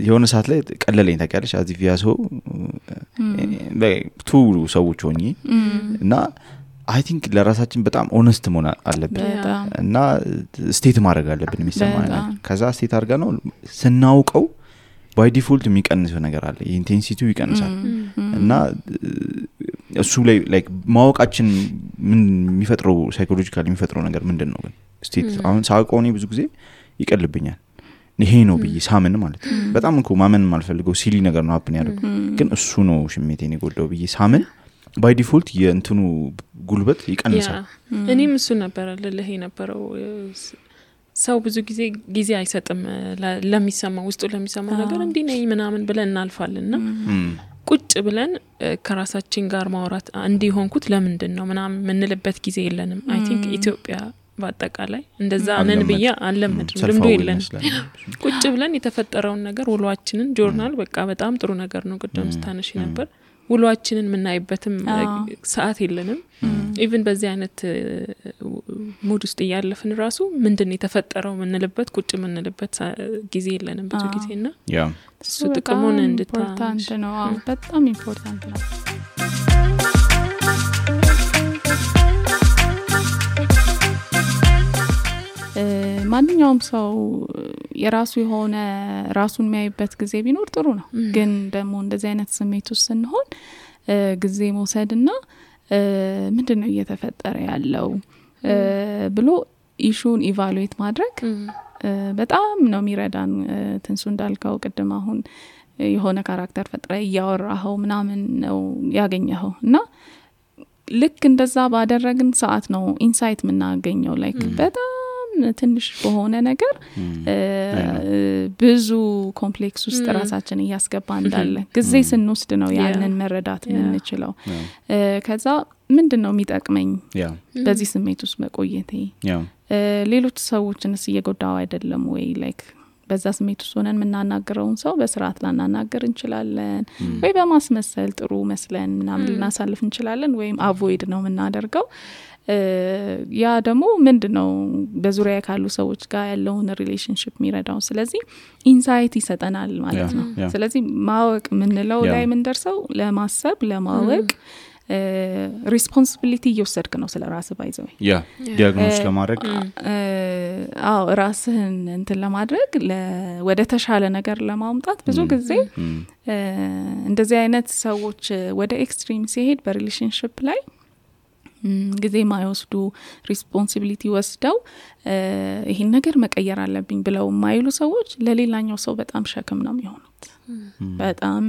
የሆነ ሰዓት ላይ ቀለለኝ ታውቂያለሽ አዚ ቪያሶ በቱ ሰዎች ሆኜ እና አይ ቲንክ ለራሳችን በጣም ኦነስት መሆን አለብን እና ስቴት ማድረግ አለብን የሚሰማን ከዛ ስቴት አድርጋ ነው ስናውቀው ባይ ዲፎልት የሚቀንሰው ነገር አለ ኢንቴንሲቲው ይቀንሳል እና እሱ ላይ ላይክ ማወቃችን ምን የሚፈጥረው ሳይኮሎጂካሊ የሚፈጥረው ነገር ምንድነው ግን ስቴት አሁን ሳውቀው ብዙ ጊዜ ይቀልብኛል ይሄ ነው ብዬ ሳምን ማለት በጣም እኮ ማመን ማልፈልገው ሲሊ ነገር ነው ሀፕን ያደርገው ግን እሱ ነው ሽሜቴን ይጎዳው ብዬ ሳምን ባይ ዲፎልት የእንትኑ ጉልበት ይቀንሳል እኔም እሱ ነበር ለለህ የነበረው ሰው ብዙ ጊዜ አይሰጥም ለሚሰማው ውስጡ ለሚሰማው ነገር እንዴ ነኝ ምናምን ብለን እናልፋልና ቁጭ ብለን ከራሳችን ጋር ማውራት እንዲሆንኩት ለምንድነው ምናምን ምንልበት ጊዜ የለንም አይ ቲንክ ኢትዮጵያ በአጠቃላይ እንደዛ ነን ብዬ አለመድም ልምዶ የለን ቁጭ ብለን የተፈጠረውን ነገር ውሏችንን ጆርናል በቃ በጣም ጥሩ ነገር ነው ቅድም ስታነሺ ነበር ውሏችንን ምናይበትም ሰዓት የለንም ኢቭን በዚህ አይነት ሙድ ውስጥ ያለፍን ራሱ ምንድነው የተፈጠረው ምንልበት ቁጭ ምንልበት ጊዜ የለንም ብዙ ጊዜና እሱ ጥቅሙን ኢምፖርታንት ነው በጣም ኢምፖርታንት ነው ማንኛውም ሰው የራሱ የሆነ ራሱን የሚያይበት ጊዜ ቢኖር ጥሩ ነው ግን ደግሞ እንደዚህ አይነት ስሜት ውስጥ ስንሆን ጊዜ መውሰድና ምንድነው እየተፈጠረ ያለው ብሎ ኢሹን ኢቫሉዌት ማድረግ በጣም ነው የሚረዳን ትንሱ እንዳልከው ቅድም አሁን የሆነ ካራክተር ፈጥረ ያወራው ምናምን ነው ያገኘው እና ልክ እንደዛ ባደረግን ሰዓት ነው ኢንሳይት ምናገኘው ላይክ በጣም ትንሽ በሆነ ነገር ብዙ ኮምፕሌክስ ውስጥ ራሳችን እያስገባ እንዳለ ጊዜ ስንወስድ ነው ያንን መረዳት ምንችለው ከዛ ምንድነው የሚጠቅመኝ በዚህ ስሜት ውስጥ መቆየቴ ሌሎች ሰዎችንስ እየጎዳው አይደለም ወይ ላይክ በዛ ስሜት ውስጥ ሆነን የምናናገረውን ሰው በስርዓት ላናናገር እንችላለን ወይ በማስመሰል ጥሩ መስለን ምናምን ልናሳልፍ እንችላለን ወይም አቮይድ ነው የምናደርገው ያ ደግሞ ምንድነው በዙሪያ ካሉ ሰዎች ጋር ያለውን ሪሌሽንሺፕ የሚረዳው ስለዚህ ኢንሳይት ይሰጠናል ማለት ነው ስለዚህ ማወቅ ምንለው ላይ ምን ደርሰው ለማሰብ ለማወቅ ሪስፖንሲቢሊቲ እየወሰድክ ነው ስለ ራስህ ባይዘው ዲያግኖስ ለማድረግ ራስህን እንትን ለማድረግ ወደ ተሻለ ነገር ለማምጣት ብዙ ጊዜ እንደዚህ አይነት ሰዎች ወደ ኤክስትሪም ሲሄድ በሪሌሽንሺፕ ላይ ጊዜ ማይወስዱ ሪስፖንሲቢሊቲ ወስደው ይሄን ነገር መቀየር አለብኝ ብለው ማይሉ ሰዎች ለሌላኛው ሰው በጣም ሸክም ነው የሚሆኑት በጣም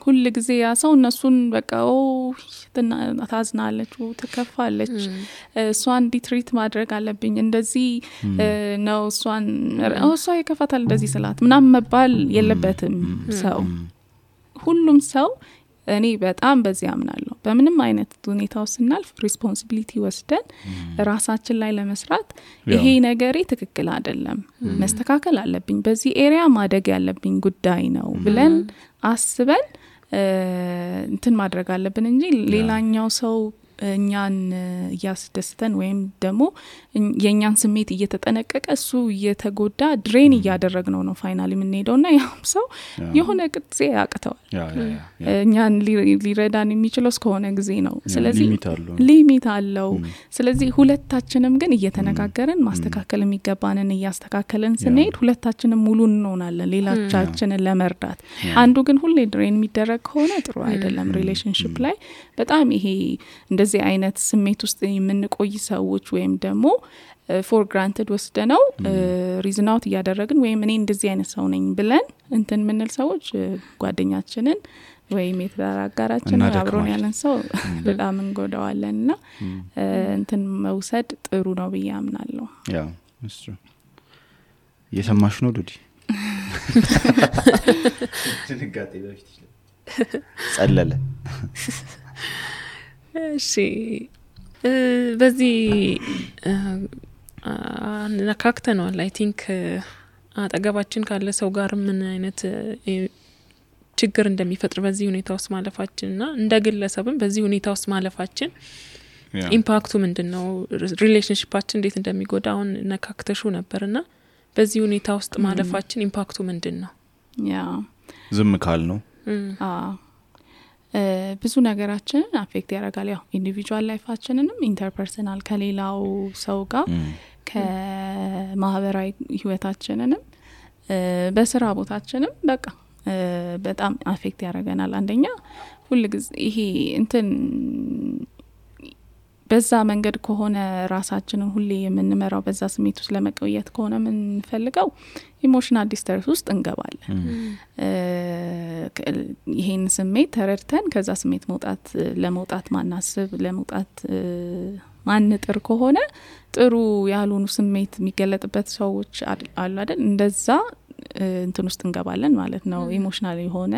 ሁሉ ጊዜ ያ ሰው እነሱን በቃ ታዝናለች ትከፋለች እሷን ዲትሪት ማድረግ አለብኝ እንደዚህ ነው እሷ ይከፋታል እንደዚህ ስላት ምናምን መባል የለበትም ሰው ሁሉም ሰው እኔ በጣም በዚህ አምናለሁ በምንም አይነት ሁኔታው ስናልፍ ሪስፖንሲቢሊቲ ወስደን ራሳችን ላይ ለመስራት ይሄ ነገሬ ትክክል አይደለም መስተካከል አለብኝ በዚህ ኤሪያ ማደግ ያለብኝ ጉዳይ ነው ብለን አስበን እንትን ማድረግ አለብን እንጂ ሌላኛው ሰው እኛን ያስደስተን ወይም ደግሞ የኛን ስሜት እየተጠነቀቀ እሱ እየተጎዳ ድሬን እያደረግነው ነው ፋይናሊ ምን ሄደውና ያም ሰው የሆነ ጊዜ ያቅተዋል እኛን ሊረዳን የሚችለው እስከሆነ ጊዜ ነው ስለዚህ ሊሚት አለው ስለዚህ ሁለታችንም ግን እየተነጋገርን ማስተካከል የሚገባንን እያስተካከለን ስንሄድ ሁለታችንም ሙሉ እንሆናለን ሌላቻችንን ለመርዳት አንዱ ግን ሁሌ ድሬን የሚደረግ ከሆነ ጥሩ አይደለም ሪሌሽንሺፕ ላይ በጣም ይሄ እንደዚህ አይነት ስሜት ውስጥ የምንቆይ ሰዎች ወይም ደግሞ ፎር ግራንትድ ወስደነው ሪዝን አውት ያደረግን ወይም እኔ እንደዚህ አይነት ሰው ነኝ ብለን እንትን ምንል ሰዎች ጓደኛችንን ወይም የተራጋራችን አብሮን ያለን ሰው በጣም እንጎዳዋለንና እንትን መውሰድ ጥሩ ነው ብዬ አምናለሁ ያ እሱ የሰማሽ ነው ዱዲ ትንጋጤ በፊት ጸለለ እሺ በዚህ ነካክተናል አይ ቲንክ አጠገባችን ካለ ሰው ጋር ምን አይነት ችግር እንደሚፈጥር በዚህ ሁኔታ ውስጥ ማለፋችንና እንደ ግለሰብም በዚህ ሁኔታ ውስጥ ማለፋችን ኢምፓክቱ ምንድነው ሪሌሽንሺፓችን እንዴት እንደሚጎዳው ነካክተሹ ነበርና በዚህ ሁኔታ ውስጥ ማለፋችን ኢምፓክቱ ምንድነው ያ ዝም ካል ነው ብዙ ነገራችንን አፌክት ያደርጋል ያው ኢንዲቪጁዋል ላይፋችንንም ኢንተርፐርሰናል ከሌላው ሰው ጋር ከማህበራዊ ህይወታችንንም በስራ ቦታችንም በቃ በጣም አፌክት ያደርገናል አንደኛ ሁሉ ጊዜ ይሄ እንትን በዛ መንገድ ከሆነ ራሳችንን ሁሌ የምንመራው በዛ ስሜት ውስጥ ለመቆየት ከሆነ ምን ፈልገው ኢሞሽናል ዲስተርስ ውስጥ እንገባለን ይሄን ስሜት ተረድተን ከዛ ስሜት ለመውጣት ማናስብ ለመውጣት ማንጥር ከሆነ ጥሩ ያሉን ስሜት የሚገለጥበት ሰዎች አሉ አይደል እንደዛ እንትን ውስጥ እንገባለን ማለት ነው ኢሞሽናል የሆነ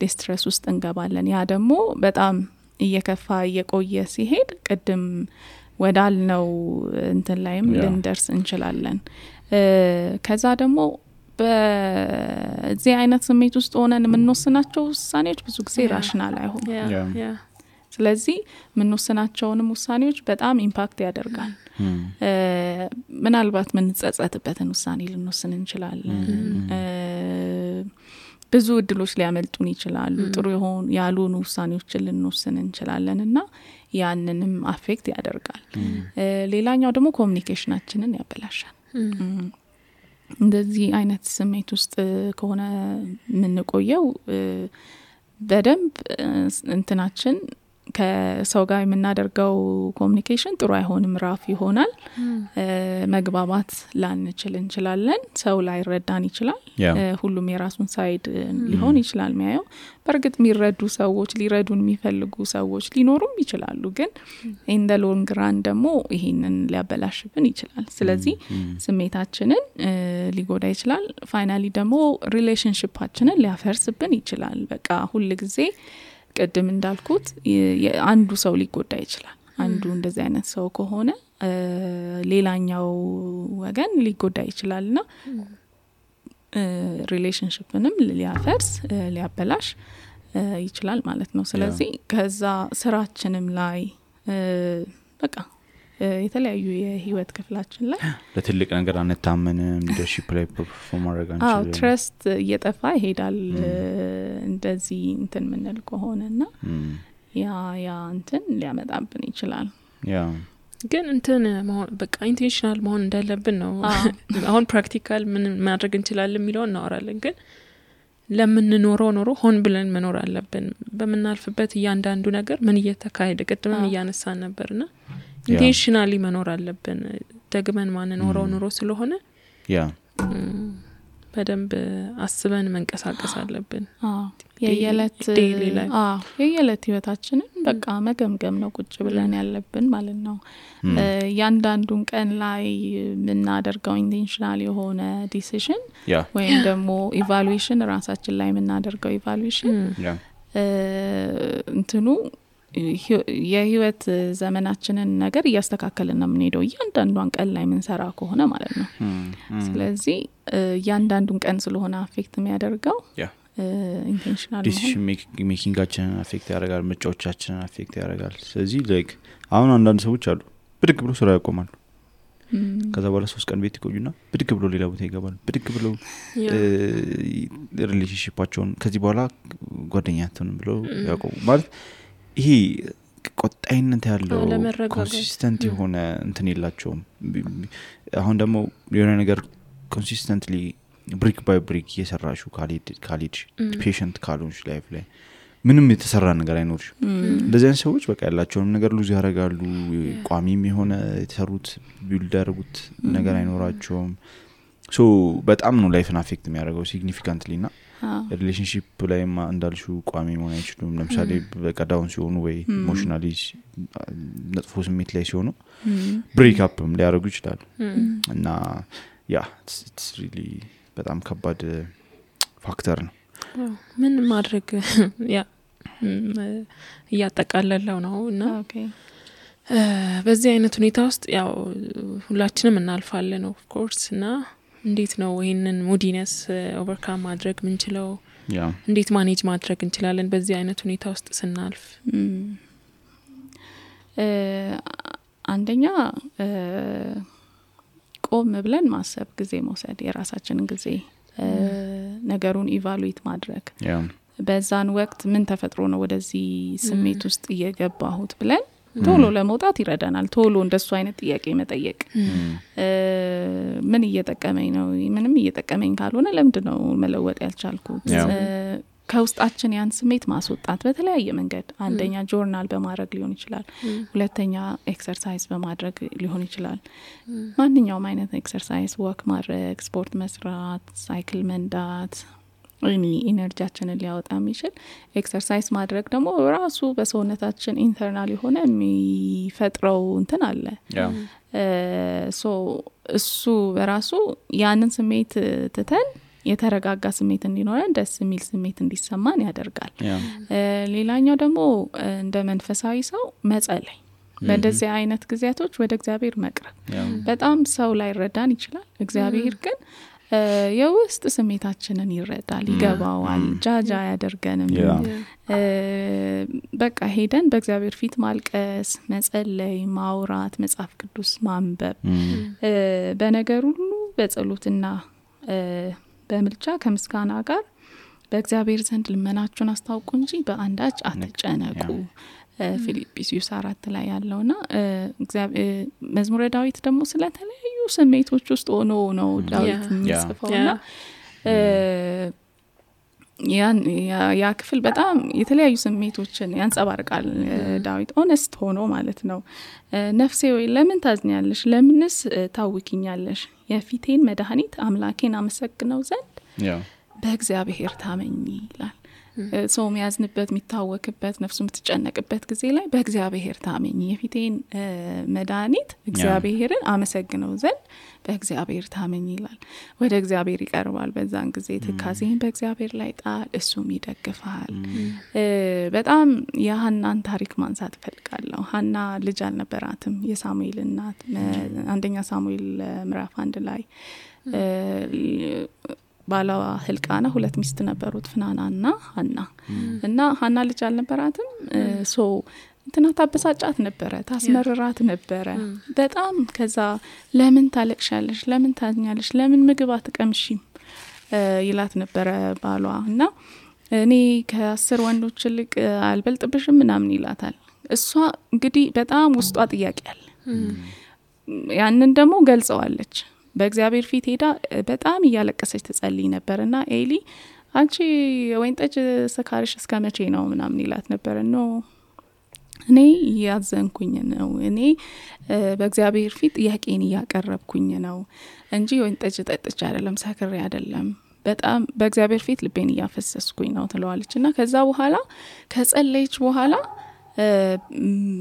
ዲስትረስ ውስጥ እንገባለን ያ ደግሞ በጣም እየከፋ እየቆየ ሲሄድ ቀደም ወዳልነው እንትን ላይም ልንደርስ እንችላለን ከዛ ደግሞ በዚህ አይነት ስሜት ውስጥ ሆነን የምንወስናቸው ውሳኔዎች ብዙ ጊዜ ራሽናል አይሆኑም ስለዚህ የምንወስናቸውንም ውሳኔዎች በጣም ኢምፓክት ያደርጋል ምናልባት ምን ጸጸትበትን ውሳኔ ልንወስን እንችላለን ብዙ እድሎች ሊያመልጡን ይችላሉ ጥሩ ይሆን ያሉን ውሳኔዎችን ልንወስን እንችላለንና ያንንም አፌክት ያደርጋል ሌላኛው ደግሞ ኮሙኒኬሽናችንን ያበላሻል እንደዚህ አይነት ስሜት ውስጥ ከሆነ ምንቆየው በደንብ እንትናችን ከሰው ጋር የምናደርገው ኮሙኒኬሽን ጥሩ አይሆንም ራፍ ይሆናል መግባባት ላንችል እንችላለን ሰው ላይ ረዳን ይችላል ሁሉም የራሱን ሳይድ ሊሆን ይችላል የሚያየው በርግጥ የሚረዱ ሰዎች ሊረዱን የሚፈልጉ ሰዎች ሊኖሩም ይችላሉ ግን ኢን ዘ ሎንግ ራን ደግሞ ይሄንን ሊያበላሽብን ይችላል ስለዚህ ስሜታችንን ሊጎዳ ይችላል ፋይናሊ ደግሞ ሪሌሽንሺፓችንን ሊያፈርስብን ይችላል በቃ ሁሉ ጊዜ ቀደም እንዳልኩት አንዱ ሰው ሊጎዳ ይችላል አንዱ እንደዚህ አይነት ሰው ከሆነ ሌላኛው ወገን ሊጎዳ ይችላልና ሪሌሽንሺፕንም ሊያፈርስ ሊያበላሽ ይችላል ማለት ነው። ስለዚህ ከዛ ስራችንም ላይ በቃ የተለያዩ የህይወት ክፍላችን ላይ ለትልቅ ነገር አንታመንም ሊደርሺፕ ላይ ፐርፎርም ማድረግ አንችልም ትረስት እየጠፋ ይሄዳል እንደዚህ እንትን ምንል ከሆነና ያ እንትን ሊያመጣብን ይችላል ግን እንትን በቃ ኢንቴንሽናል መሆን እንዳለብን ነው አሁን ፕራክቲካል ምን ማድረግ እንችላለን የሚለው እናወራለን ግን ለምን ኖሮ ሆን ብለን መኖር አለብን በመናልፍበት እያንዳንዱ ነገር ምን እየተካሄደ ቀጥመን እያነሳን ነበርና ኢንቴንሽናሊ መኖር አለብን ደግመን ማን ኖሮ ስለሆነ በደንብ አስበን መንቀሳቀስ አለብን የየለት ህይወታችንን በቃ መገምገም ነው ቁጭ ብለን ያለብን ማለት ነው ያንዳንዱን ቀን ላይ ምናደርገው ኢንቴንሽናል የሆነ ዲሲዥን ወይም ደግሞ ኢቫሉዌሽን ራሳችን ላይ ምናደርገው ኢቫሉዌሽን እንትኑ የህይወት ዘመናችንን ነገር እያስተካከልን ነው የምንሄደው እያንዳንዱን ቀን ላይ ምንሰራ ከሆነ ማለት ነው ስለዚህ እያንዳንዱን ቀን ስለሆነ አፌክት የሚያደርገው ኢንቴንሽናል ዲሲዥን ሜኪንጋችንን አፌክት ያደርጋል ምርጫዎቻችንን አፌክት ያደርጋል ስለዚህ ላይክ አሁን አንዳንድ ሰዎች አሉ ብድግ ብሎ ስራ ያቆማሉ ከዛ በኋላ 3 ቀን ቤት ይቆዩና ብድግ ብሎ ሌላ ቦታ ይገባሉ ብድግ ብሎ ሪሌሽንሺፓቸውን ከዚህ በኋላ ጓደኛቸውን ብሎ ያቆሙ ማለት ይሄ ቆጣይነት ያለው ኮንሲስተንት የሆነ እንትን የላቸውም አሁን ደግሞ የሆነ ነገር ኮንሲስተንትሊ ብሪክ ባይ ብሪክ እየሰራሹ ካሊድ ፔሸንት ካሉንሽ ላይፍ ላይ ምንም የተሰራ ነገር አይኖርሽ እንደዚህ አይነት ሰዎች በቃ ያላቸውን ነገር ሉዝ ያደርጋሉ ቋሚም የሆነ የተሰሩት ቢልድ ያደርጉት ነገር አይኖራቸውም ሶ በጣም ነው ላይፍን አፌክት የሚያደርገው ሲግኒፊካንትሊና ሪሌሽንሺፕ ላይ እንዳልሹ ቋሚ መሆን አይችሉም ለምሳሌ በቃ ዳውን ሲሆኑ ወይ ኢሞሽናሊ ነጥፎ ስሜት ላይ ሲሆኑ ብሬክ አፕም ሊያደርጉ ይችላሉ እና it's really በጣም ከባድ ፋክተር ነው ምን ማድረግ ያጠቃለለው ነው እና በዚህ አይነት ሁኔታ ውስጥ ያው ሁላችንም እናልፋለን ኦፍ ኮርስ እና እንዴት ነው ይሄንን ሙዲነስ ኦቨርካም ማድረግ ምንችለው እንዴት ማኔጅ ማድረግ እንችላለን በዚህ አይነት ሁኔታ ውስጥ ስናልፍ አንደኛ ቆም ብለን ማሰብ ጊዜ መውሰድ የራሳችንን ጊዜ ነገሩን ኢቫሉዌት ማድረግ በዛን ወቅት ምን ተፈጥሮ ነው ወደዚህ ስሜት ውስጥ እየገባሁት ብለን ቶሎ ለመውጣት ይረዳናል ቶሎ እንደሱ አይነት ጥያቄ መጠየቅ ምን እየተጠቀመኝ ነው ምንም እየተጠቀመኝ ካልሆነ ለምንድነው መለወጥ ያልቻልኩት ከውስጣችን ያን ስሜት ማስወጣት በተለያየ መንገድ አንደኛ ጆርናል በማድረግ ሊሆን ይችላል ሁለተኛ ኤክሰርሳይዝ በማድረግ ሊሆን ይችላል ማንኛውም አይነት ኤክሰርሳይዝ ወክ ማድረግ ስፖርት መስራት ሳይክል መንዳት ኢነርጂያችንን ሊያወጣ የሚችል ኤክሰርሳይዝ ማድረግ ደግሞ ራሱ በሰውነታችን ኢንተርናል የሆነ የሚፈጥረው እንትን አለ ሶ እሱ በራሱ ያንን ስሜት ትተን የተረጋጋ ስሜት እንዲኖረን ደስ የሚል ስሜት እንዲሰማን ያደርጋል ሌላኛው ደግሞ እንደ መንፈሳዊ ሰው መጸለይ በእንደዚህ አይነት ጊዜያቶች ወደ እግዚአብሔር መቅረብ በጣም ሰው ላይ ረዳን ይችላል እግዚአብሔር ግን የውስጥ ስሜታችንን ይረዳል ይገባዋል ጃጃ ያደርገንም በቃ ሄደን በእግዚአብሔር ፊት ማልቀስ መጸለይ ማውራት መጽሐፍ ቅዱስ ማንበብ በነገር ሁሉ በጸሎትና በመልቻ ከምስጋና ጋር በእግዚአብሔር ዘንድ ልመናችሁን አስታውቁ እንጂ በአንዳች አትጨነቁ ፊልጵስዩስ 4 ላይ ያለውና እግዚአብሔር መዝሙረ ዳዊት ደግሞ ስለተለያዩ ስሜቶች ውስጥ ሆኖ ነው ዳዊት የሚጽፈውና ያ ክፍል በጣም የተለያዩ ስሜቶችን ያንጸባርቃል ዳዊት ኦነስት ሆኖ ማለት ነው ነፍሴ ወይ ለምን ታዝኛለሽ ለምንስ ታውቂኛለሽ የፊቴን መድኃኒት አምላኬን አመሰግነው ዘንድ በእግዚአብሔር ታመኝ ይላል ሰው የሚያዝንበት የሚታወክበት ነፍሱ የምትጨነቅበት ጊዜ ላይ በእግዚአብሔር ታመኝ የፊቴን መድኃኒት እግዚአብሔርን አመሰግነው ዘንድ በእግዚአብሔር ታመኝ ይላል። ወደ እግዚአብሔር ይቀርባል። በዛን ጊዜ ትካዜን በእግዚአብሔር ላይ ጣል እሱም ይደግፋል። በጣም የሐናን ታሪክ ማንሳት ፈልጋለሁ። ሐና ልጅ አልነበራትም። የሳሙኤል እናት አንደኛ ሳሙኤል ምዕራፍ 1 ላይ ባላ ህልቃና 2 ሚስት ነበሩት ፍናናና ሐና እና ሐና ልጅ አልነበራትም። ሶ እንትና ታበሳጫት ነበረ፣ ታስመረራት ነበረ በጣም። ከዛ ለምን ታለቅሻለሽ፣ ለምን ታኛለሽ፣ ለምን ምግብ አትቀምሺም ይላት ነበረ ባሏ። እና እኔ ከ10 ወንዶች ልቅ አልበልጥብሽም ምናምን ይላታል። እሷ እንግዲህ በጣም ውስጧ ጥያቄ አለ። ያንን ደግሞ ገልጸዋለች። በእግዚአብሔር ፊት ሄዳ በጣም እያለቀሰች ትጸልይ ነበርና ኤሊ አንቺ ወይን ጠጅ ሰካርሽ እስከመቼ ነው ምናምን ይላት ነበር። ነው እኔ ያዘንኩኝ ነው፣ እኔ በእግዚአብሔር ፊት ጥያቄን ያቀረብኩኝ ነው እንጂ ወይን ጠጅ ጠጥቼ አይደለም፣ ሰክሬ አይደለም፣ በጣም በእግዚአብሔር ፊት ልቤን ያፈሰስኩኝ ነው ትለዋለችና ከዛ በኋላ ከጸለይች በኋላ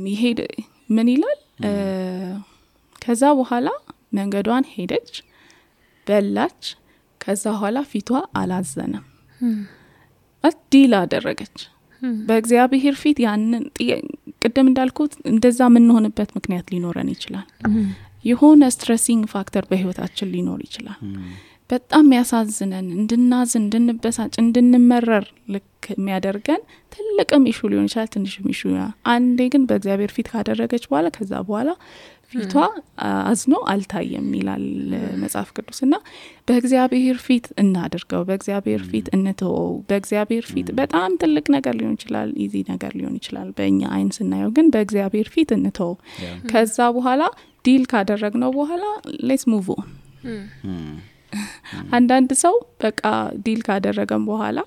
ይሄድ ምን ይላል? ከዛ በኋላ መንገዷን ሄደች፣ በላች። ከዛ በኋላ ፊቷ አላዘነም። ዲል አደረገች በእግዚአብሔር ፊት። ያንን ቅድም እንዳልኩት እንደዛ ምን ሆነበት ምክንያት ሊኖረን ይችላል። የሆነ ስትሬሲንግ ፋክተር በህይወታችን ሊኖር ይችላል። በጣም ያሳዝነን እንድናዝን፣ እንድንበሳጭ፣ እንድንመረር ልክ የሚያደርገን ትልቅም ኢሹ ሊሆን ይችላል፣ ትንሽም ኢሹ። አንዴ ግን በእግዚአብሔር ፊት ካደረገች በኋላ ከዛ በኋላ ፊቷ አዝኖ አልታየም ይላል መጽሐፍ ቅዱስና በእግዚአብሔር ፊት እናድርገው፣ በእግዚአብሔር ፊት እንተወው። በእግዚአብሔር ፊት በጣም ትልቅ ነገር ሊሆን ይችላል፣ ኢዚ ነገር ሊሆን ይችላል በእኛ አይን ስናየው፣ ግን በእግዚአብሔር ፊት እንተወው። ከዛ በኋላ ዲል ካደረግነው በኋላ ሌትስ ሙቭ ኦን። አንዳንድ ሰው በቃ ዲል ካደረገን በኋላ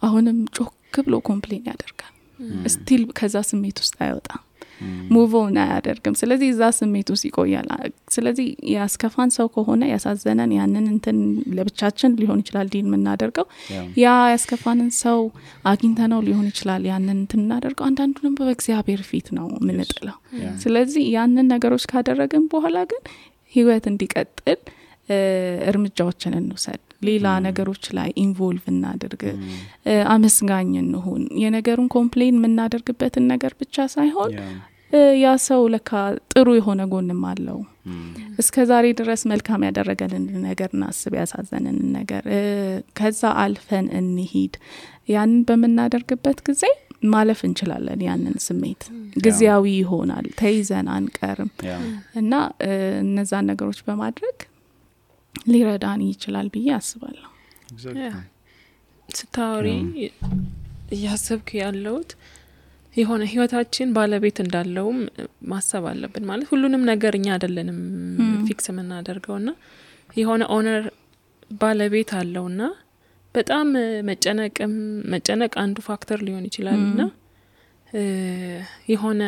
አሁንም ጮክ ብሎ ኮምፕሌን ያደርጋል። ስቲል ከዛ ስሜት ውስጥ አይወጣም፣ ሙቭ ኦን አያደርግም። ስለዚህ እዛ ስሜት ውስጥ ይቆያል። ስለዚህ ያስከፋን ሰው ከሆነ ያሳዘነን ያንን እንትን ለብቻችን ሊሆን ይችላል ዲል የምናደርገው፣ ያ ያስከፋንን ሰው አግኝተነው ሊሆን ይችላል ያንን እንትን እናደርገው። አንዳንዱንም በእግዚአብሔር ፊት ነው የምንጥለው። ስለዚህ ያንን ነገሮች ካደረግን በኋላ ግን ህይወት እንዲቀጥል እርምጃዎችን እንውሰድ። ሌላ ነገሮች ላይ ኢንቮልቭ እናድርግ። አመስጋኝ እንሁን። የነገሩን ኮምፕሌን የምናደርግበትን ነገር ብቻ ሳይሆን ያ ሰው ለካ ጥሩ የሆነ ጎንም አለው፣ እስከዛሬ ድረስ መልካም ያደረገልን ነገር እናስብ፣ ያሳዘነን ነገር ከዛ አልፈን እንሂድ። ያንን በመናደርግበት ጊዜ ማለፍ እንችላለን። ያንን ስሜት ጊዜያዊ ይሆናል፣ ተይዘን አንቀርም እና እነዛን ነገሮች በማድረግ ሊረዳን ይችላል ብዬ አስባለሁ። ስታወሪ ያሰብክ ያለውት የሆነ ህይወታችን ባለቤት እንዳለውም ማሰብ አለብን። ማለት ሁሉንም ነገር እኛ አይደለንም ፊክስ የምናደርገውና የሆነ ኦነር ባለቤት አለውና በጣም መጨነቅ አንዱ ፋክተር ሊሆን ይችላልና የሆነ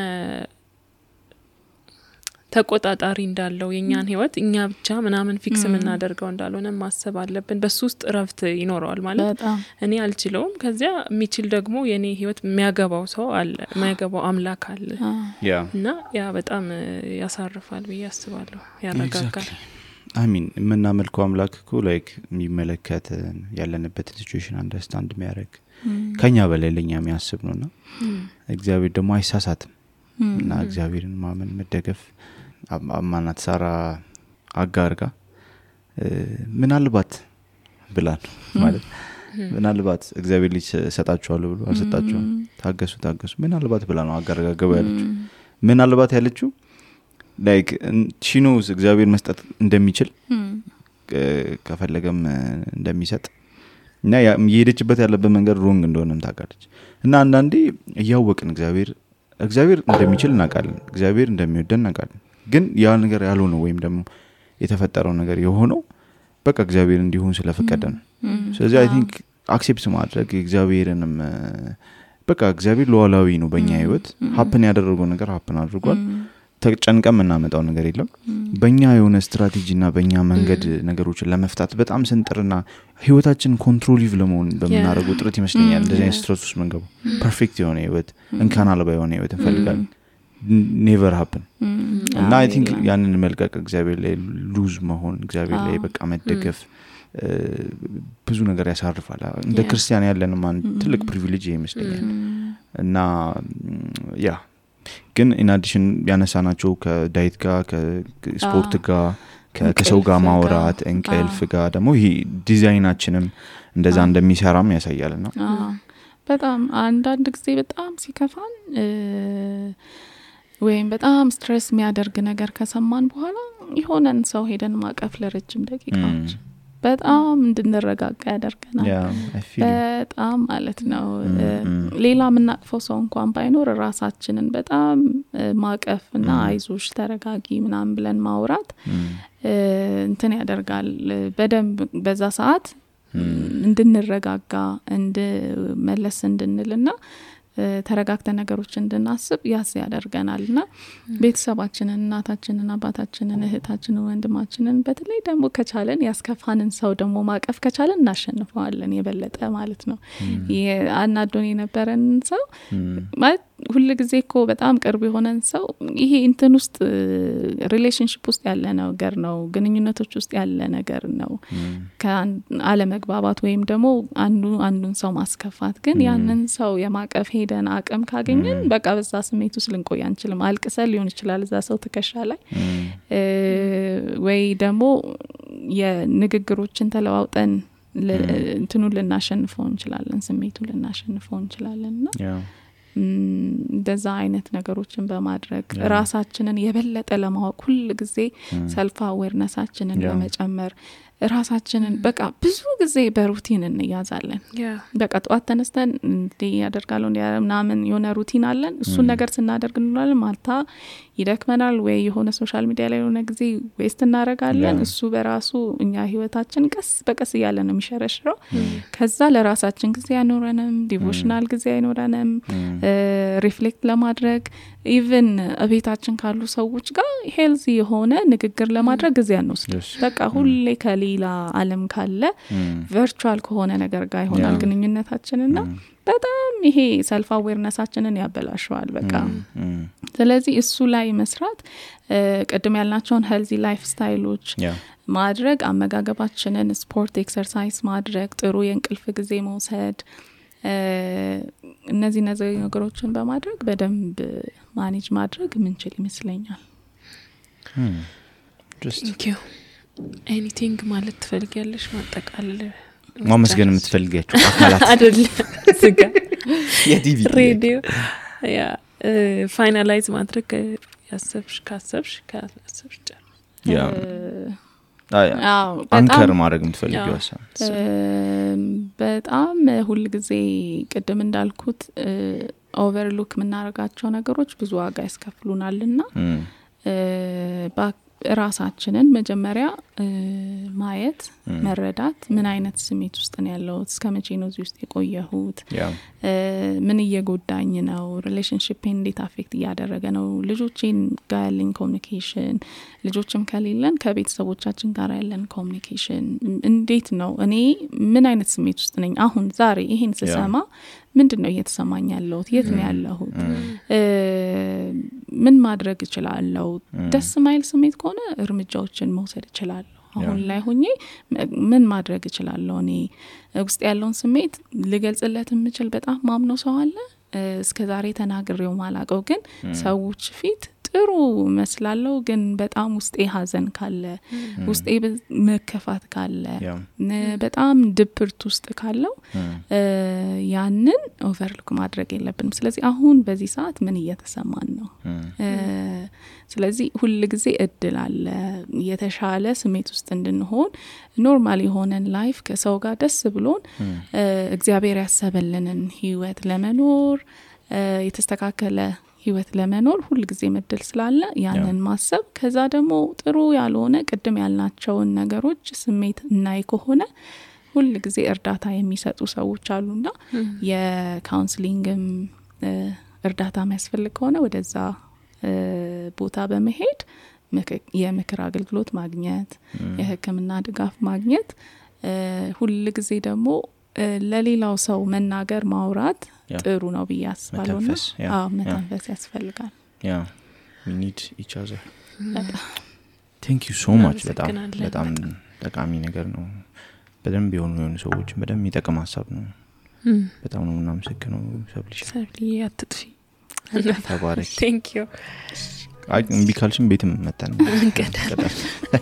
ተቆጣጣሪ እንዳለው የኛን ህይወት እኛ ብቻ ምናምን ፊክስ የምናደርገው እንዳልሆነ ማሰብ አለብን። በሱ ውስጥ ረፍት ይኖረዋል። ማለት እኔ አልችለውም፣ ከዚያ የሚችል ደግሞ የኔ ህይወት የሚያገባው ሰው አለ፣ የሚያገባው አምላክ አለ እና ያ በጣም ያሳርፋል ብዬ አስባለሁ፣ ያረጋጋል። አሚን። የምናመልከው አምላክ እኮ ላይክ የሚመለከት ያለንበት ሲቹዌሽን አንደርስታንድ የሚያደርግ ከኛ በላይ ለኛ የሚያስብ ነውና እግዚአብሔር ደግሞ አይሳሳትም እና እግዚአብሔርን ማመን መደገፍ አማናት ሳራ አጋርጋ ምናልባት ብላን ማለት ምናልባት እግዚአብሔር ልጅ ሰጣቸዋል ብሎ አልሰጣቸውም፣ ታገሱ ምናልባት ብላ ነው አጋርጋ ገባ ያለችው። ምናልባት ያለችው ላይክ she knows እግዚአብሔር መስጠት እንደሚችል ከፈለገም እንደሚሰጥ እና የሄደችበት ያለበት መንገድ ሮንግ እንደሆነም ታውቃለች። እና አንዳንዴ እያወቅን እግዚአብሔር እንደሚችል እናውቃለን፣ እግዚአብሔር እንደሚወደን እናውቃለን። ግን ያ ነገር ያልሆነው ወይም ደግሞ የተፈጠረው ነገር የሆነው በቃ እግዚአብሔር እንዲሆን ስለፈቀደ ነው። ስለዚህ አይ ቲንክ አክሴፕት ማድረግ እግዚአብሔርንም በቃ እግዚአብሔር ሉዓላዊ ነው በእኛ ህይወት። ሀፕን ያደረገው ነገር ሀፕን አድርጓል። ተጨንቀም እናመጣው ነገር የለም በእኛ የሆነ ስትራቴጂና በእኛ መንገድ ነገሮችን ለመፍታት በጣም ስንጥርና ህይወታችን ኮንትሮሊቭ ለመሆን በመናረገው ጥረት ይመስለኛል እንደዚህ አይነት ስትረስ ውስጥ መንገቡ ፐርፌክት የሆነ ህይወት እንካን አልባ የሆነ ህይወት እንፈልጋለን never happen እና I think ያንን መልቀቅ እግዚአብሔር ላይ ሉዝ መሆን እግዚአብሔር ላይ በቃ መደገፍ ብዙ ነገር ያሳርፋል እንደ ክርስቲያን ያለን ማን ትልቅ ፕሪቪሌጅ ይመስለኛል እና ያ ግን in addition ያነሳናቸው ከዳይት ጋር ከስፖርት ጋር ከሰው ጋር ማውራት እንቅልፍ ጋር ደግሞ ይሄ ዲዛይናችንም እንደዛ እንደሚሰራም ያሳያልና በጣም አንዳንድ ጊዜ በጣም ሲከፋን ወይም በጣም ስትሬስ የሚያደርግ ነገር ከሰማን በኋላ ይሆነን ሰው ሄደን ማቀፍ ለረጅም ደቂቃዎች በጣም እንድንረጋጋ ያደርገናል በጣም ማለት ነው ሌላ ምናቅፈው ሰው እንኳን ባይኖር ራሳችንን በጣም ማቀፍና አይዞሽ ተረጋጊ ምናምን ብለን ማውራት እንትን ያደርጋል በደንብ በዛ ሰዓት እንድንረጋጋ እንድመለስ እንድንልና ተረጋግተን ነገሮች እንድናስብ ያደርገናልና ቤተሰባችንን እናታችንን አባታችንን እህታችንን ወንድማችንን በተለይ ደግሞ ከቻለን ያስከፋንን ሰው ደግሞ ማቀፍ ከቻለን እናሸንፈዋለን የበለጠ ማለት ነው አናዶን የነበረን ሰው ማለት ሁሉ ጊዜ እኮ በጣም ቅርብ የሆነን ሰው ይሄ እንትን ውስጥ ሪሌሽንሺፕ ውስጥ ያለ ነገር ነው ግንኙነቶች ውስጥ ያለ ነገር ነው ከአለ መግባባት ወይም ደግሞ አንዱን ሰው ማስከፋት ግን ያንን ሰው የማቀፍ ሄደን አቅም ካገኘን በቃ በዛ ስሜት ውስጥ ልንቆይ አንችልም አልቅሰን ሊሆን ይችላል እዛ ሰው ትከሻ ላይ ወይ ደግሞ የንግግሮችን ተለዋውጠን እንትኑ ልናሸንፈው እንችላለን ስሜቱ ልናሸንፈው እንችላለንና እንደዛ አይነት ነገሮችን በማድረግ ራሳችንን የበለጠ ለማወቅ ሁሉ ጊዜ ሰልፍ አዌርነሳችንን በመጨመር ራሳችንን በቃ ብዙ ጊዜ በሩቲን እንያዛለን በቃ ጧት ተነስተን እንዴ ያደርጋለው እንዴ የሆነ ሩቲን አለን እሱን ነገር ስናደርግ እንላለን ማልታ ይደክመናል ወይ የሆነ ሶሻል ሚዲያ ላይ የሆነ ጊዜ ዌስት እናረጋለን እሱ በራሱ እኛ ህይወታችን ቀስ በቀስ ያለ ነው የሚሸረሽረው ከዛ ለራሳችን ጊዜ ያኖረንም ዲቮሽናል ጊዜ ያኖረንም ሪፍሌክት ለማድረግ ኢቭን አቤታችን ካሉ ሰዎች ጋር ሄልዚ የሆነ ንግግር ለማድረግ ጊዜ አንወስድ በቃ ሁሌ ከሌላ ዓለም ካለ ቨርቹዋል ከሆነ ነገር ጋር ይሆናል ግንኙነታችንና በጣም ይሄ ሰልፍ አዌርነሳችንን ያበላሽዋል በቃ ስለዚህ እሱ ላይ መስራት ቀደም ያልናቸውን ሄልዚ ላይፍ ስታይሎች ማድረግ አመጋገባችንን ስፖርት ኤክሰርሳይዝ ማድረግ ጥሩ የእንቅልፍ ጊዜ መውሰድ እነዚህ ነገሮችን በማድረግ በደንብ ማኔጅ ማድረግ ምንችል ይመስለኛል Thank you. Anything ማለት ትፈልጊያለሽ ማጠቃለል ማመስገን የምትፈልጊያቸው አካላት አይደል ዝጋ የቲቪ ሬዲዮ ያ ፋይናላይዝ ማድረግ ያሰብሽ ያ አንከር ማድረግ የምትፈልጊው በጣም ሁሉ ጊዜ ቅድም እንዳልኩት ኦቨርሉክ ምናረጋቸው ነገሮች ብዙ ዋጋ ያስከፍሉናልና ራሳችንን መጀመሪያ ማየት መረዳት ምን አይነት ስሜት ውስጥ ነው ያለው እስከመቼ ነው እዚህ ውስጥ የቆየሁት ምን እየጎዳኝ ነው ሪሌሽንሺፕ እንዴት አፌክት ያደረገ ነው ልጆችን ጋር ያለን ኮሙኒኬሽን ልጆችም ከሌለን ከቤተሰቦቻችን ጋር ያለን ኮሙኒኬሽን እንዴት ነው እኔ ምን አይነት ስሜት ውስጥ ነኝ አሁን ዛሬ ይሄን ስሰማ ምንድነው እየተሰማኝ ያለው የት ነው ያለሁት ምን ማድረግ እችላለሁ ደስ ማይል ስሜት ከሆነ እርምጃዎችን መውሰድ እችላለሁ አሁን ላይ ሆኜ ምን ማድረግ እችላለሁ እኔ ውስጥ ያለውን ስሜት ልገልጽለት የምችል በጣም ማምነው ሰው አለ እስከዛሬ ተናግሬው ማላቀው ግን ሰዎች ፊት ጥሩ መስላለው ግን በጣም ውስጤ ሀዘን ካለ ውስጤ መከፋት ካለ በጣም ድብርት ውስጥ ካለው ያንን ኦቨርሉክ ማድረግ የለብንም ስለዚህ አሁን በዚህ ሰዓት ምን እየተሰማን ነው ስለዚህ ሁሉ ጊዜ እድል አለ የተሻለ ስሜት ውስጥ እንድንሆን ኖርማል የሆነን ላይፍ ከሰው ጋር ደስ ብሎን እግዚአብሔር ያሰበልንን ህይወት ለመኖር የተስተካከለ ህይወት ለመኖር ሁሉ ጊዜ መድል ስላለ ያንን ማሰብ ከዛ ደግሞ ጥሩ ያልሆነ ቅድም ያልናቸውን ነገሮች ስሜት እናይ ከሆነ ሁሉ ጊዜ እርዳታ የሚሰጡ ሰዎች አሉና የካውንስሊንግም እርዳታ የሚያስፈልግ ከሆነ ወደዛ ቦታ በመሄድ የምክር አገልግሎት ማግኘት የሕክምና ድጋፍ ማግኘት ሁሉ ጊዜ ደግሞ ለሌላው ሰው መናገር ማውራት ጥሩ ነው ብዬ አስባለሁ መተንፈስ ያስፈልጋል we need each other thank you so much በጣም ጠቃሚ ነገር ነው በደንብ የሆኑ ሰዎች በደንብ ይጠቅም ሀሳብ ነው በጣም ነው እናመሰግነው ሰብሊ አትጥፊ ተባረክ thank you ቢካልሽም ቤትም መጣን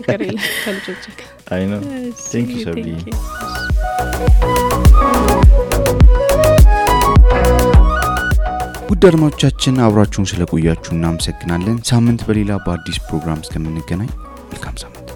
ከረይ ከልጆች I know thank you ሰብሊ ውድ አድማጮቻችን አብራችሁን ስለቆያችሁ እናመሰግናለን ሳምንት በሌላ በአዲስ ፕሮግራም እስከምንገናኝ መልካም ሳምንት